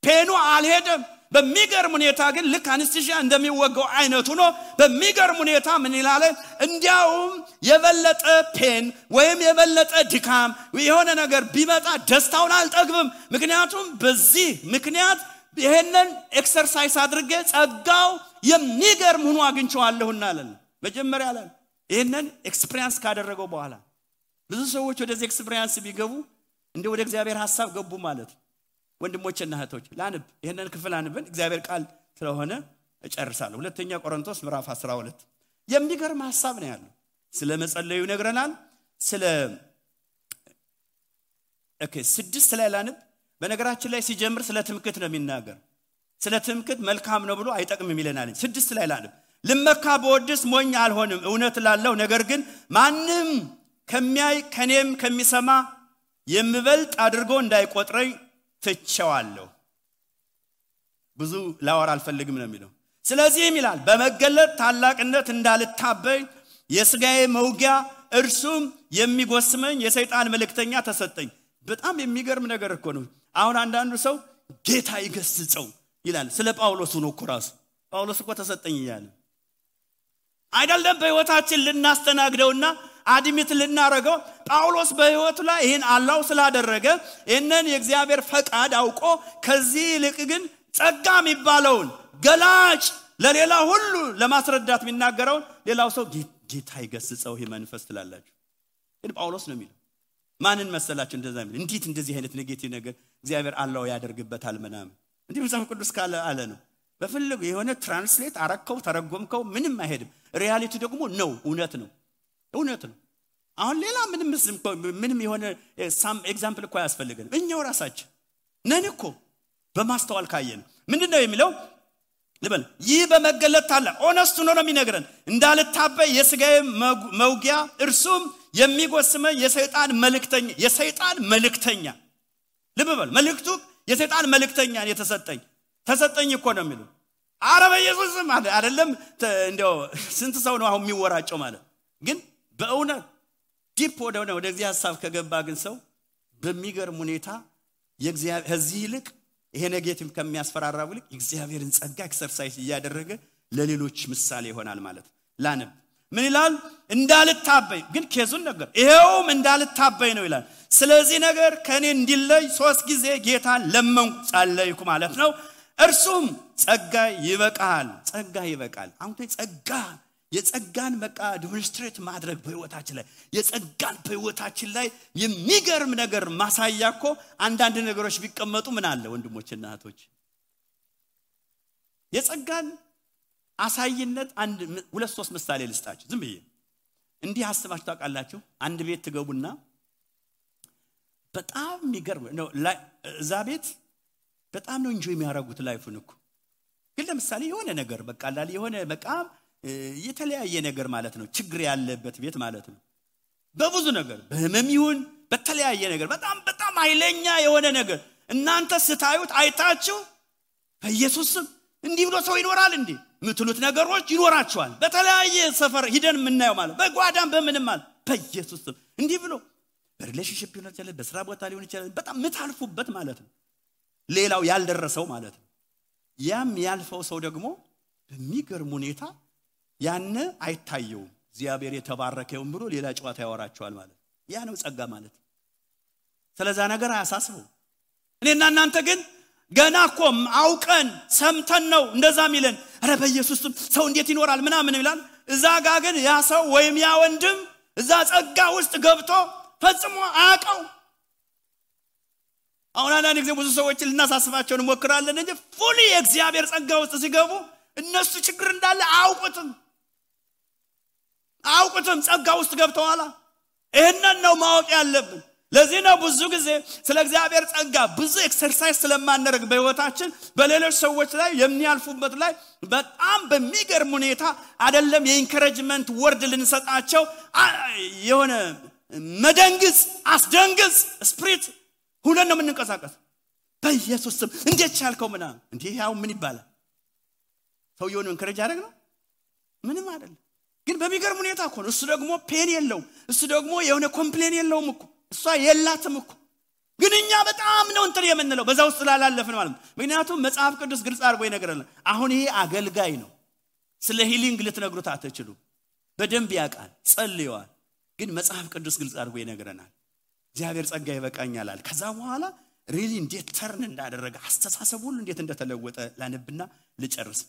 Speaker 1: ፔኑ አልሄደም በሚገርም ሁኔታ ግን ልክ አንስቲሺያ እንደሚወጋው አይነቱ ነው በሚገርም ሁኔታ ምን ይላል እንዲያውም የበለጠ ፔን ወይም የበለጠ ድካም የሆነ ነገር ቢመጣ ደስታውን አልጠግብም ምክንያቱም በዚህ ምክንያት ይሄንን ኤክሰርሳይዝ አድርጌ ጸጋው የሚገርም ሆኖ አግኝቻለሁና አለን መጀመሪያ አለን ይሄንን ኤክስፒሪየንስ ካደረገው በኋላ ብዙ ሰዎች ወደዚህ ኤክስፒሪየንስ ቢገቡ እንደ ወደ እግዚአብሔር ሐሳብ ገቡ ማለት ወንድሞችና እህቶች ላንብ ይሄንን ክፍል አንብን እግዚአብሔር ቃል ስለሆነ እጨርሳለሁ ሁለተኛ ቆሮንቶስ ምዕራፍ 12 የሚገርም ሐሳብ ነው ያለው ስለ መጸለዩ ይነግረናል ስለ 6 ላይ ላንብ በነገራችን ላይ ሲጀምር ስለ ትምክህት ነው የሚናገር ስለ ትምክህት መልካም ነው ብሎ አይጠቅምም ይለናል 6 ላይ ላንብ ልመካ በወድስ ሞኝ አልሆንም እውነት ላለው ነገር ግን ማንንም ከሚያይ ከኔም ከሚሰማ የምበልጥ አድርጎ እንዳይቆጥረኝ ትቸዋለሁ ብዙ ላወራ አልፈልግም ነው የሚለው ስለዚህም ይላል በመገለጥ ታላቅነት እንዳልታበይ የሥጋዬ መውጊያ እርሱም የሚጎስመኝ የሰይጣን መልእክተኛ ተሰጠኝ በጣም የሚገርም ነገር እኮ ነው አሁን አንዳንዱ ሰው ጌታ ይገስጸው ይላል ስለ ጳውሎስ ነው እኮ ራሱ ጳውሎስ እኮ ተሰጠኝ ይላል አይደለም በህይወታችን ልናስተናግደውና አድሚት ልናረገው ጳውሎስ በህይወቱ ላይ ይሄን አላው ስላደረገ እነን የእግዚአብሔር ፈቃድ አውቆ ከዚህ ልቅ ግን ጸጋ የሚባለውን ገላጭ ለሌላ ሁሉ ለማስረዳት የሚናገረው ሌላው ሰው ጌታ ይገስጸው ይሄ መንፈስ ትላላችሁ ግን ጳውሎስ ነው የሚለው ማንን መሰላችሁ እንደዛ የሚል እንዴት እንደዚህ አይነት ኔጌቲቭ ነገር እግዚአብሔር አላው ያደርግበታል ምናምን እንዴ መጽሐፍ ቅዱስ ካለ አለ ነው በፍልግ የሆነ ትራንስሌት አረከው ተረጎምከው ምንም አይሄድም ሪያሊቲ ደግሞ ነው እውነት ነው አሁን ሌላ ምንም የሆነ ሳም ኤግዛምፕል እኮ ያስፈልገን እኛው ራሳችን ነን እኮ በማስተዋል ካየን ምንድነው የሚለው ልበል ይህ በመገለጥ ታላ ኦነስት ነው የሚነግረን እንዳልታበይ የሥጋዬ መውጊያ እርሱም የሚጎስመኝ የሰይጣን መልእክተኛ ልበል መልእክቱ የሰይጣን መልእክተኛ ተሰጠኝ እኮ ነው የሚለው አረበ ኢየሱስ ማለት አይደለም እንደው ስንት ሰው ነው አሁን የሚወራጨው ማለት ግን በእውነት ዲፕ ወደ እግዚአብሔር ሐሳብ ከገባ ግን ሰው በሚገርም ሁኔታ የእግዚአብሔር ከዚህ ይልቅ ይሄ ኔጌቲቭ ከሚያስፈራራው ይልቅ እግዚአብሔርን ጸጋ ኤክሰርሳይዝ ያደረገ ለሌሎች ምሳሌ ይሆናል ማለት ላንብ ምን ይላል እንዳልታበይ ግን ኬዙን ነገር ይሄውም እንዳልታበይ ነው ይላል ስለዚህ ነገር ከኔ እንዲለይ 3 ጊዜ ጌታን ለመንኩ ጸለይኩ ማለት ነው እርሱም ጸጋ ይበቃል አሁን ጸጋ የጸጋን በቃ ዲሞንስትሬት ማድረግ በህይወታችን ላይ የጸጋን በህይወታችን ላይ የሚገርም ነገር ማሳያኮ አንዳንድ ነገሮች ቢቀመጡ ምን አለ ወንድሞችና እህቶች የጸጋን አሳይነት 2-3 ምሳሌ ልስጣችሁ ዝም ብዬ እንዲህ አስባችሁ ታውቃላችሁ አንድ ቤት ትገቡና በጣም የሚገርም ነው እዛ ቤት በጣም ነው ኢንጆይ የሚያደርጉት ላይፉን እኮ ግን ለምሳሌ የሆነ ነገር በቃ አላል የሆነ በቃ የተለያየ ነገር ማለት ነው ችግር ያለበት ቤት ማለት ነው በብዙ ነገር በህመም ይሁን በተለያየ ነገር በጣም ኃይለኛ የሆነ ነገር እናንተ ስታዩት አይታችሁ በኢየሱስ ስም እንዲህ ብሎ ሰው ይኖራል እንዴ ምትሉት ነገሮች ይኖራቸዋል በተለያየ ሰፈር ሂደን ምናየው ማለት በጓዳም በምንም ማለት በኢየሱስ ስም እንዲህ ብሎ በሪሌሽንሺፕ ሊሆን ይችላል በስራ ቦታ ሊሆን ይችላል በጣም ምታልፉበት ማለት ነው ሌላው ያልደረሰው ማለት ነው ያም ያልፈው ሰው ደግሞ በሚገርም ሁኔታ ያነ አይታየው እግዚአብሔር የተባረከው ብሎ ሌላ ጨዋታ ያወራቸዋል ማለት ያ ነው ጸጋ ማለት ስለዛ ነገር አያሳስበው እኔና እናንተ ግን ገና እኮ አውቀን ሰምተን ነው እንደዛ ሚለን አረ በኢየሱስ ሰው እንዴት ይኖራል ምናምን ይላል እዛ ጋር ግን ያ ሰው ወይም ያ ወንድም እዛ ጸጋ ውስጥ ገብቶ ፈጽሞ አያውቀው አሁን አንዳንድ ጊዜ ብዙ ሰዎች ልናሳስባቸው እንሞክራለን እንጂ ፉሊ የእግዚአብሔር ጸጋ ውስጥ ሲገቡ እነሱ ችግር እንዳለ አውቁትም ጸጋ ውስጥ ገብተዋል። ይሄንን ነው ማወቅ ያለብን። ለዚህ ነው ብዙ ጊዜ ስለ እግዚአብሔር ጸጋ ብዙ ኤክሰርሳይዝ ስለማንረግ በህይወታችን በሌሎች ሰዎች ላይ የሚያልፉበት ላይ በጣም በሚገርም ሁኔታ አይደለም የኢንከሬጅመንት ወርድ ልንሰጣቸው የሆነ መደንግጽ አስደንግጽ ስፒሪት ሁሉ ነው የምንንቀሳቀስ። በኢየሱስ ስም እንዴት ቻልከው ምናምን እንዴ ያው ምን ይባላል? ሰውየውን ኢንከሬጅ አደረግ ነው ምንም አይደለም። ግን በሚገርም ሁኔታ እኮ እሱ ደግሞ ፔን የለው እሱ ደግሞ የሆነ ኮምፕሌን የለውም እኮ እሷ የላትም እኮ። ግን እኛ በጣም ነው እንትን የምንለው በዛው ስላላለፈን ማለት ነው። ምክንያቱም መጽሐፍ ቅዱስ ግልጽ አድርጎ ይነግረናል። አሁን ይሄ አገልጋይ ነው። ስለ ሂሊንግ ልትነግሩት አትችሉ። በደንብ ያውቃል፣ ጸልየዋል። ግን መጽሐፍ ቅዱስ ግልጽ አድርጎ ይነግረናል። እግዚአብሔር ጸጋ ይበቃኛል አለ። ከዛ በኋላ ሪሊ እንዴት ተርን እንዳደረገ አስተሳሰብ ሁሉ እንዴት እንደተለወጠ ላነብና ልጨርስ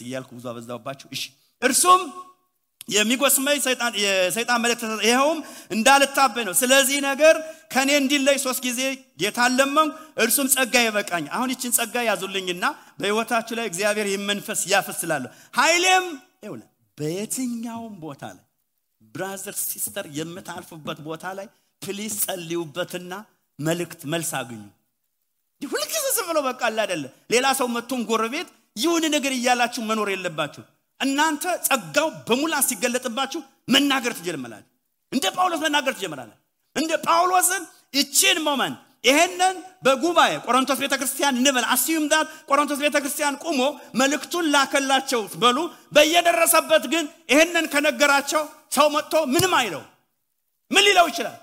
Speaker 1: እያልኩ ብዙ አበዛውባችሁ። እሺ እርሱም የሚጎስመኝ የሰይጣን መልእክት ይሄውም እንዳልታበይ ነው። ስለዚህ ነገር ከኔ እንዲለይ 3 ጊዜ ጌታን ለመንኩ፣ እርሱም ጸጋ ይበቃኝ። አሁን ይችን ጸጋ ያዙልኝና በህይወታችሁ ላይ እግዚአብሔር ይመንፈስ ያፈስላል። ኃይሌም ይውላ በየትኛውም ቦታ ላይ ብራዘር ሲስተር የምታልፉበት ቦታ ላይ ፕሊዝ ጸልዩበትና መልስ አግኙ። ሁልጊዜ ዝም ብሎ በቃ አይደለ ሌላ ሰው መጥቶን ጎረቤት ይሁን ነገር ይያላችሁ መኖር የለባችሁ። እናንተ ጸጋው በሙላት ሲገለጥባችሁ መናገር ትጀምራላችሁ። እንደ ጳውሎስ መናገር ትጀምራላችሁ። እንደ ጳውሎስን እቺን ሞመንት ይሄንን በጉባኤ ቆሮንቶስ ቤተክርስቲያን እንበል አስዩም ዳት ቆሮንቶስ ቤተክርስቲያን ቆሞ መልእክቱን ላከላቸው በሉ በየደረሰበት ግን ይሄንን ከነገራቸው ሰው መጥቶ ምንም አይለው ምን ሊለው ይችላል?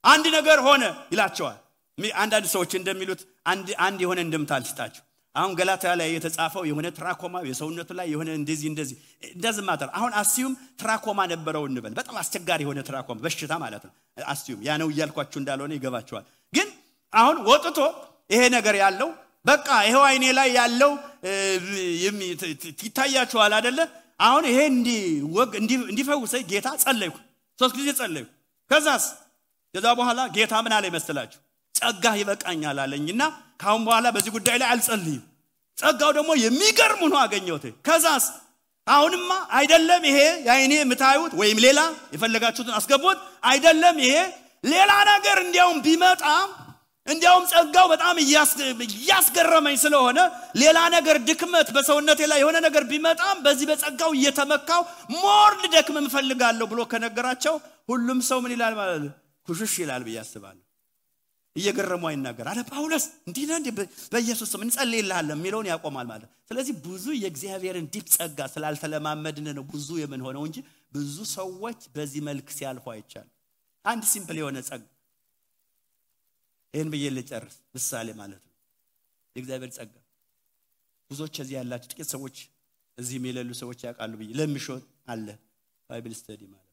Speaker 1: አንድ ነገር ሆነ ይላቸዋል። አንዳንድ ሰዎች እንደሚሉት አንድ የሆነ እንደምታልስጣቸው አሁን ገላትያ ላይ የተጻፈው የሆነ ትራኮማ የሰውነቱ ላይ የሆነ እንደዚህ ማተር አሁን አስዩም ትራኮማ ነበረው እንበል በጣም አስቸጋሪ የሆነ ትራኮማ በሽታ ማለት ነው። አስዩም ያ ነው ይያልኳችሁ እንዳልሆነ ይገባችኋል። ግን አሁን ወጥቶ ይሄ ነገር ያለው በቃ ይሄው አይኔ ላይ ያለው ይታያችኋል አይደለ? አሁን ይሄ እንዲፈውሰኝ ጌታ ጸለይኩ 3 ጊዜ ጸለይኩ። ከዛ በኋላ ጌታ ምን አለ ይመስላችሁ? ጸጋ ይበቃኛል አለኝና ካሁን በኋላ በዚህ ጉዳይ ላይ አልጸልይም። ጸጋው ደግሞ የሚገርም ሆኖ አገኘሁት። ከዛስ አሁንማ አይደለም ይሄ ያይኔ የምታዩት ወይም ሌላ የፈለጋችሁትን አስገቡት አይደለም ይሄ ሌላ ነገር እንዲያውም ቢመጣ እንዲያውም ጸጋው በጣም ያስገረመኝ ስለሆነ ሌላ ነገር ድክመት በሰውነቴ ላይ የሆነ ነገር ቢመጣም በዚህ በጸጋው እየተመካው ሞር ልደክም እንፈልጋለሁ ብሎ ከነገራቸው ሁሉም ሰው ምን ይላል ማለት ነው? ኩሽሽ ይላል በያስባል እየገረመው አይናገር አለ ጳውሎስ እንዲህ ነው በኢየሱስ ስም እንጸልይልሃለን የሚለውን ያቆማል ማለት። ስለዚህ ብዙ የእግዚአብሔርን ዲፕ ጸጋ ስላልተለማመድን ነው ብዙ የምንሆነው እንጂ ብዙ ሰዎች በዚህ መልክ ሲያልፉ አይቻል። አንድ ሲምፕል የሆነ ጸጋ ይሄን በየልጨርስ ምሳሌ ማለት ነው። የእግዚአብሔር ጸጋ ብዙዎች እዚህ ያላችሁ ጥቂት ሰዎች እዚህ የሚለሉ ሰዎች ያውቃሉ ብዬ ለምሾት አለ ባይብል ስተዲ ማለት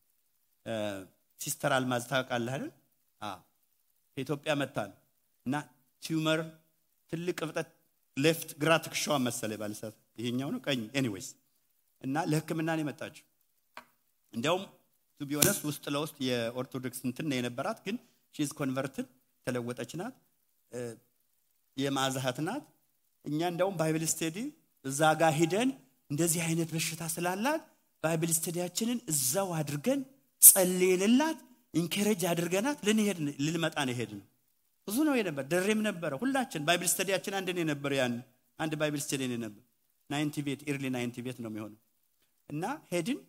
Speaker 1: ሲስተር አልማዝ ታውቃለህ አይደል? ከኢትዮጵያ መጣን እና ቲዩመር ትልቅ እብጠት ሌፍት ግራ ትከሻዋ መሰለ ባልሳት ይሄኛው ነው ቀኝ ኤኒዌይስ እና ለህክምና ነው የመጣችው። እንዲያውም ቱ ቢ ኦነስት ውስጥ ለውስጥ የኦርቶዶክስ እንትን ነው የነበራት ግን ሺ ኢዝ ኮንቨርትድ ተለወጠች ናት የማዛሃት ናት። እኛ እንደውም ባይብል ስተዲ እዛ ጋር ሄደን እንደዚህ አይነት በሽታ ስላላት ባይብል ስተዲያችንን እዛው አድርገን ጸልየንላት ኢንከሬጅ አድርገናት ልንመጣ ነው ሄድን። ብዙ ነው የነበር ደሬም ነበር ሁላችን ባይብል ስተዲያችን አንድ ነው ነበር ያን አንድ ባይብል ስተዲ ነው ነበር 90 ቤት ኢርሊ 90 ቤት ነው የሚሆነው እና ሄድን።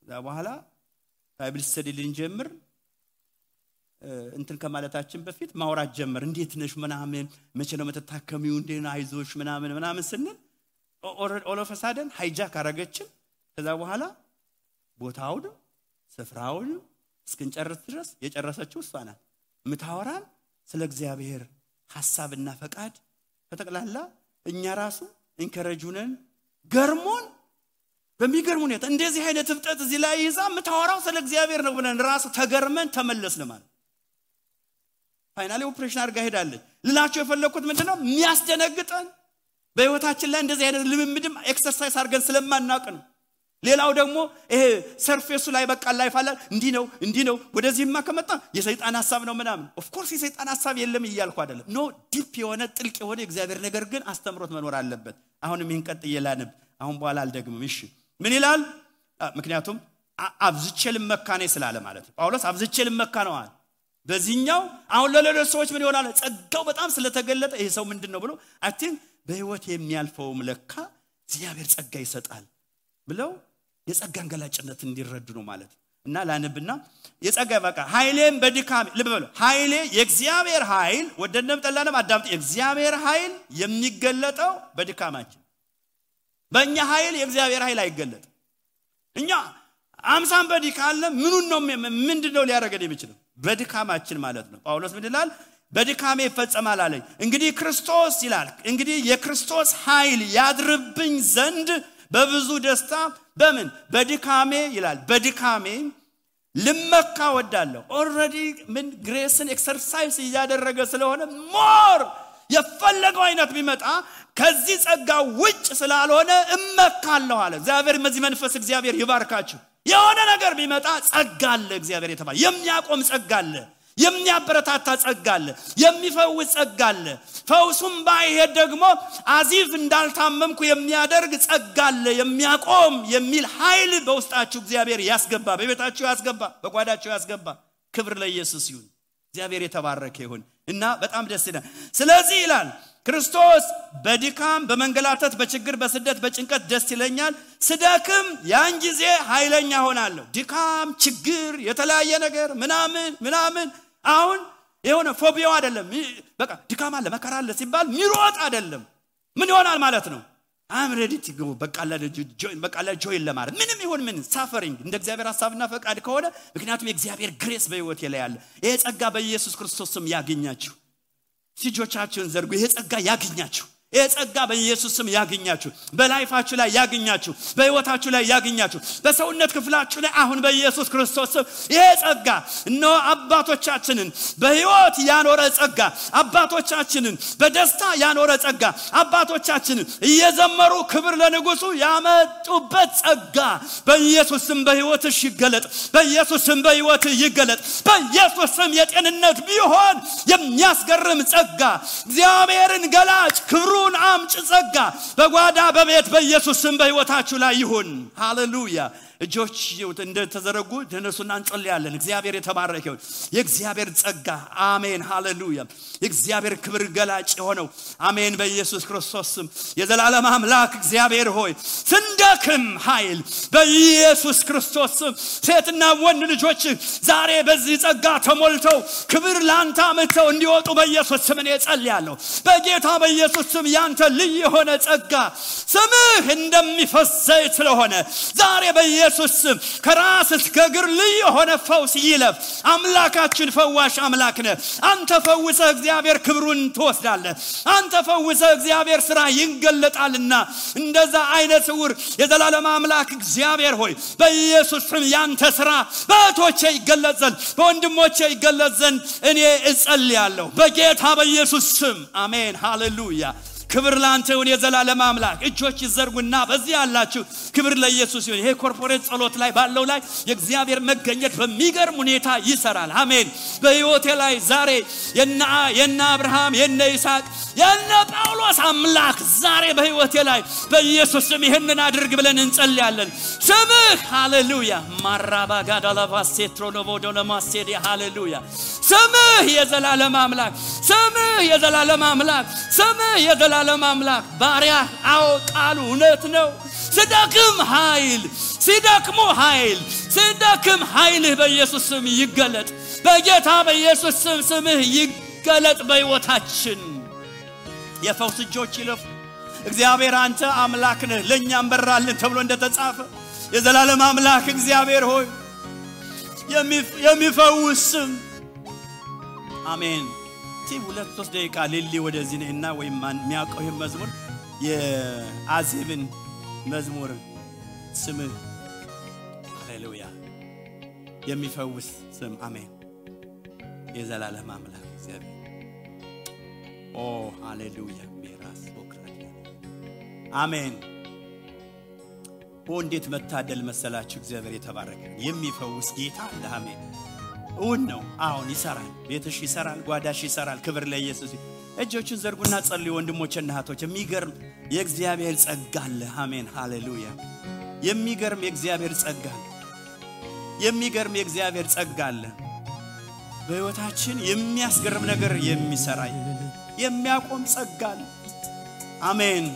Speaker 1: ከዛ በኋላ ባይብል ስተዲ ልንጀምር እንትን ከማለታችን በፊት ማውራት ጀመር። እንዴት ነሽ ምናምን መቼ ነው መተታከሚው እንዴና አይዞሽ ምናምን ስንል ኦል ኦፍ ሳደን ሃይጃክ አረገችን። ከዛ በኋላ ቦታውን ስፍራውን እስክንጨርስ ድረስ የጨረሰችው እሷ ናት። ምታወራን ስለ እግዚአብሔር ሐሳብና ፈቃድ ተጠቅላላ እኛ ራሱ ኢንከሬጁነን ገርሞን በሚገርም ሁኔታ እንደዚህ አይነት ፍጥረት እዚህ ላይ ይዛ ምታወራው ስለ እግዚአብሔር ነው ብለን ራሱ ተገርመን ተመለስን ማለት። ፋይናሊ ኦፕሬሽን አድርጋ ሄዳለች። ልላችሁ የፈለኩት ምንድነው የሚያስደነግጠን በህይወታችን ላይ እንደዚህ አይነት ልምምድም ኤክሰርሳይዝ አድርገን ስለማናውቅ ነው። ሌላው ደግሞ ይሄ ሰርፌሱ ላይ በቃ ላይፍ አለ እንዲህ ነው ወደዚህማ ከመጣ የሰይጣን ሐሳብ ነው ምናምን ኦፍ ኮርስ የሰይጣን ሐሳብ የለም ይያልኩ አይደለም ኖ ዲፕ የሆነ ጥልቅ የሆነ እግዚአብሔር ነገር ግን አስተምሮት መኖር አለበት አሁንም ይሄን ቀጥዬ ላነብ አሁን በኋላ አልደግምም እሺ ምን ይላል ምክንያቱም አብዝቼ ልመካኔ ስላለ ማለት ነው ጳውሎስ አብዝቼ ልመካ ነው አለ በዚህኛው አሁን ለሌሎች ሰዎች ምን ይሆናል ጸጋው በጣም ስለተገለጠ ይሄ ሰው ምንድነው ብሎ አይ ቲንክ በህይወት የሚያልፈው ለካ እግዚአብሔር ጸጋ ይሰጣል ብለው የጸጋን ገላጭነት እንዲረዱ ነው ማለት እና ላነብና የጸጋ በቃ ኃይሌም በድካም ልበሉ ኃይሌ የእግዚአብሔር ኃይል ወደነም ጠላንም አዳምጥ የእግዚአብሔር ኃይል የሚገለጠው በድካማችን በእኛ ኃይል የእግዚአብሔር ኃይል አይገለጥ እኛ አምሳን በድካም ምኑን ነው ምንድነው ሊያረጋግጥ የሚችለው በድካማችን ማለት ነው ጳውሎስ ምን ይላል በድካሜ ይፈጸማል አለኝ እንግዲህ ክርስቶስ ይላል እንግዲህ የክርስቶስ ኃይል ያድርብኝ ዘንድ በብዙ ደስታ በምን በድካሜ ይላል በድካሜ ልመካ ወዳለሁ ኦሬዲ ምን ግሬስን ኤክሰርሳይዝ ያደረገ ስለሆነ ሞር የፈለገው አይነት ቢመጣ ከዚህ ጸጋ ውጭ ስላልሆነ እመካለሁ አለ እግዚአብሔር መዚህ መንፈስ እግዚአብሔር ይባርካችሁ የሆነ ነገር ቢመጣ ጸጋ አለ እግዚአብሔር የተባለ የሚያቆም ጸጋ አለ የሚያበረታታ ጸጋ አለ የሚፈውስ ጸጋ አለ ፈውሱም ባይሄድ ደግሞ አዚፍ እንዳልታመምኩ የሚያደርግ ጸጋ አለ የሚያቆም የሚል ኃይል በውስጣችሁ እግዚአብሔር ያስገባ በቤታችሁ ያስገባ በጓዳችሁ ያስገባ ክብር ለኢየሱስ ይሁን እግዚአብሔር የተባረከ ይሁን እና በጣም ደስ ይላል ስለዚህ ይላል ክርስቶስ በድካም በመንገላታት በችግር በስደት በጭንቀት ደስ ይለኛል ስደክም ያን ጊዜ ኃይለኛ ሆናለሁ ድካም ችግር የተለያየ ነገር ምናምን አሁን የሆነ ፎቢያው አይደለም በቃ ድካም አለ መከራ አለ ሲባል ሚሮጥ አይደለም ምን ይሆናል ማለት ነው I'm ready to go በቃ ለጆይን ለማለት ምንም ይሁን ምን ሳፈሪንግ እንደ እግዚአብሔር ሐሳብና ፈቃድ ከሆነ ምክንያቱም የእግዚአብሔር ግሬስ በህይወት ላይ ያለ ይሄ ጸጋ በኢየሱስ ክርስቶስ ስም ያገኛችሁ ሲጆቻችሁን ዘርጉ ይሄ ጸጋ ያገኛችሁ ይሄ ጸጋ በኢየሱስ ስም ያገኛችሁ በላይፋችሁ ላይ ያገኛችሁ በህይወታችሁ ላይ ያገኛችሁ በሰውነት ክፍላችሁ ላይ አሁን በኢየሱስ ክርስቶስ ስም ይሄ ጸጋ ነው አባቶቻችንን በህይወት ያኖረ ጸጋ አባቶቻችንን በደስታ ያኖረ ጸጋ አባቶቻችንን እየዘመሩ ክብር ለንጉሱ ያመጡበት ጸጋ በኢየሱስ ስም በህይወትሽ ይገለጥ በኢየሱስ ስም በህይወትህ ይገለጥ በኢየሱስ ስም የጤንነት ቢሆን የሚያስገርም ጸጋ እግዚአብሔርን ገላጭ ክብሩ አምጭ ጸጋ በጓዳ በቤት በኢየሱስ ስም በህይወታችሁ ላይ ይሁን ሃሌሉያ እጆች እንደተዘረጉ ተነሱና እንጸልያለን እግዚአብሔር የተባረከ ይሁን የእግዚአብሔር ጸጋ አሜን ሃሌሉያ የእግዚአብሔር ክብር ገላጭ ሆነው አሜን በኢየሱስ ክርስቶስ ስም የዘላለም አምላክ እግዚአብሔር ሆይ ስንደክም ኃይል በኢየሱስ ክርስቶስ ስም ሴትና ወንድ ልጆች ዛሬ በዚህ ጸጋ ተሞልተው ክብር ላንተ አመተው እንዲወጡ በኢየሱስ ስም እኔ ጸልያለሁ በጌታ በኢየሱስ ስም ያንተ ልዩ የሆነ ጸጋ ስምህ እንደሚፈስ ዘይት ስለሆነ ዛሬ በኢየሱስ ስም ከራስ እስከ እግር ልዩ የሆነ ፈውስ ይለፍ አምላካችን ፈዋሽ አምላክ ነህ አንተ ፈውሰህ እግዚአብሔር ክብሩን ትወስዳለህ አንተ ፈውሰህ እግዚአብሔር ስራ ይንገለጣልና እንደዛ አይነት ስውር የዘላለም አምላክ እግዚአብሔር ሆይ በኢየሱስ ስም ያንተ ስራ በእቶቼ ይገለጥ ዘንድ በወንድሞቼ ይገለጥ ዘንድ እኔ እጸልያለሁ በጌታ በኢየሱስ ስም አሜን ሃሌሉያ ክብር ላንተ ይሁን የዘላለም አምላክ እጆች ይዘርጉና በዚህ ያላችሁ ክብር ለኢየሱስ ይሁን ይሄ ኮርፖሬት ጸሎት ላይ ባለው ላይ የእግዚአብሔር መገኘት በሚገርም ሁኔታ ይሰራል አሜን በህይወቴ ላይ ዛሬ የና አብርሃም የና ይስሐቅ የና ጳውሎስ አምላክ ዛሬ በህይወቴ ላይ በኢየሱስ ስም ይሄንን አድርግ ብለን እንጸልያለን ስምህ ሃሌሉያ ማራባጋዳላቫሴትሮኖቮዶለማሴዲ ሃሌሉያ ስምህ የዘላለም አምላክ ስምህ የዘላለም አምላክ ስምህ የዘላለም አምላክ ባሪያ አዎ ቃሉ እውነት ነው ስደክም ኃይል ስደክም ኃይልህ በኢየሱስ ስም ይገለጥ በጌታ በኢየሱስ ስም ስምህ ይገለጥ በህይወታችን የፈውስ እጆች ይለፉ እግዚአብሔር አንተ አምላክ ነህ ለኛም በራልን ተብሎ እንደተጻፈ የዘላለም አምላክ እግዚአብሔር ሆይ የሚፈውስ አሜን ሁለት ሶስት ደቂቃ ሊሊ ወደዚህ ነህና ወይ ማን የሚያውቀው ይሄ መዝሙር የአዜብን መዝሙር ስምህ ሃሌሉያ የሚፈውስ ስም አሜን የዘላለም አምላክ እግዚአብሔር ኦ ሃሌሉያ ሜራስ ኦክራዲያ አሜን እንዴት መታደል መሰላችሁ እግዚአብሔር የተባረከ የሚፈውስ ጌታ አለ አሜን እውን ነው አሁን ይሰራል ቤትሽ ይሰራል ጓዳሽ ይሰራል ክብር ለኢየሱስ እጆችን ዘርጉና ጸልዩ ወንድሞችና እህቶች የሚገርም የእግዚአብሔር ጸጋ አለ አሜን ሃሌሉያ የሚገርም የእግዚአብሔር ጸጋ አለ የሚገርም የእግዚአብሔር ጸጋ አለ በህይወታችን የሚያስገርም ነገር የሚሰራ የሚያቆም ጸጋ አለ አሜን